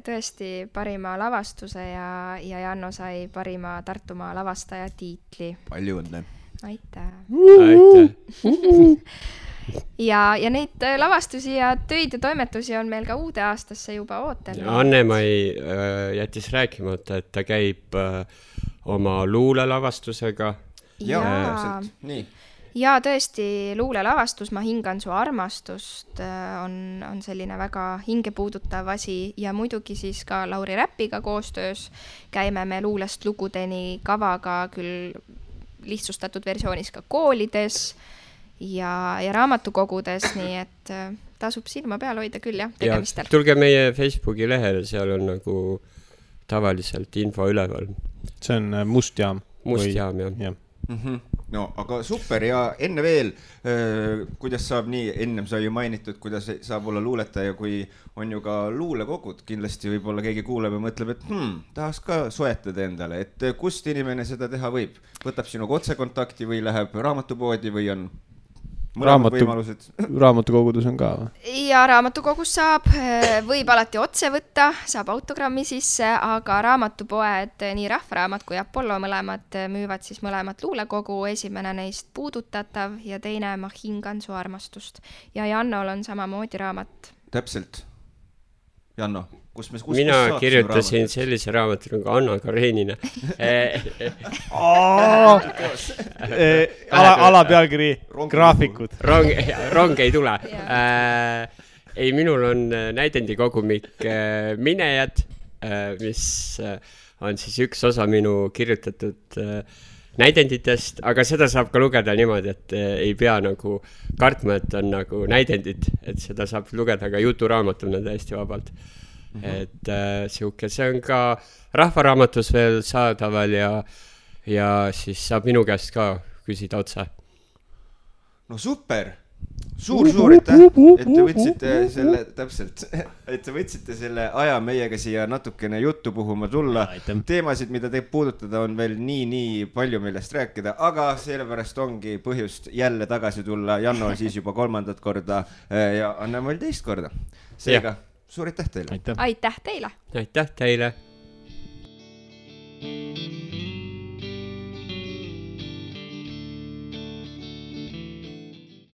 tõesti parima lavastuse ja Janno sai parima Tartumaa lavastaja tiitli. Palju õnne. Aitäh. Aitäh. Ja neid lavastusi ja töid ja toimetusi on meil ka uude aastasse juba ootel. Anne-Mai jättis rääkimata, et ta käib oma luulelavastusega. Jaa, nii. Ja tõesti luulelavastus Ma hingan su armastust on selline väga hingepuudutav asi ja muidugi siis ka Lauri Räpiga koostöös käime me luulest lugudeni kavaga küll lihtsustatud versioonis ka koolides ja raamatukogudes, nii et tasub silma peal hoida küll jah, tegemistel. Ja tulge meie Facebooki lehele, seal on nagu tavaliselt info üleval. See on Mustjaam. Mustjaam, jah. No, aga super ja enne veel, kuidas saab nii, ennem sai ju mainitud, kuidas saab olla luuletaja, kui on ju ka luulekogud, kindlasti võib-olla keegi kuuleb ja mõtleb, et tahaks ka soetada endale, et kust inimene seda teha võib? Võtab sinuga otsekontakti või läheb raamatupoodi või on raamatukogudes on ka? Ja raamatukogus võib alati otse võtta, saab autogrammi sisse, aga raamatupoed, nii Rahvaraamat kui Apollo mõlemad müüvad siis mõlemat luulekogu, esimene neist Puudutatav ja teine Ma hingan su armastust. Ja Jannol on samamoodi raamat. Täpselt. Janno, mina kirjutasin sellise raamatu nagu Anna Karenina. Alapealkiri graafikud. Rong ei tule. Ei, minul on näidendikogumik Minejad, mis on siis üks osa minu kirjutatud näidenditest, aga seda saab ka lugeda niimoodi, et ei pea nagu kartma, et on nagu näidendid, et seda saab lugeda ka juturaamatuna täiesti vabalt. Et see on ka Rahvaraamatus veel saadaval ja siis saab minu käest ka küsida otsa. No super! Suur aitäh, et te võtsite selle, täpselt, et te võtsite selle aja meiega siia natukene juttu puhuma tulla. Teemasid, mida te puudutada, on veel nii palju millest rääkida, aga sellepärast ongi põhjust jälle tagasi tulla. Janno on siis juba 3. korda ja Anne-Mai 2. korda. Seega, suur aitäh teile! Aitäh teile! Aitäh teile!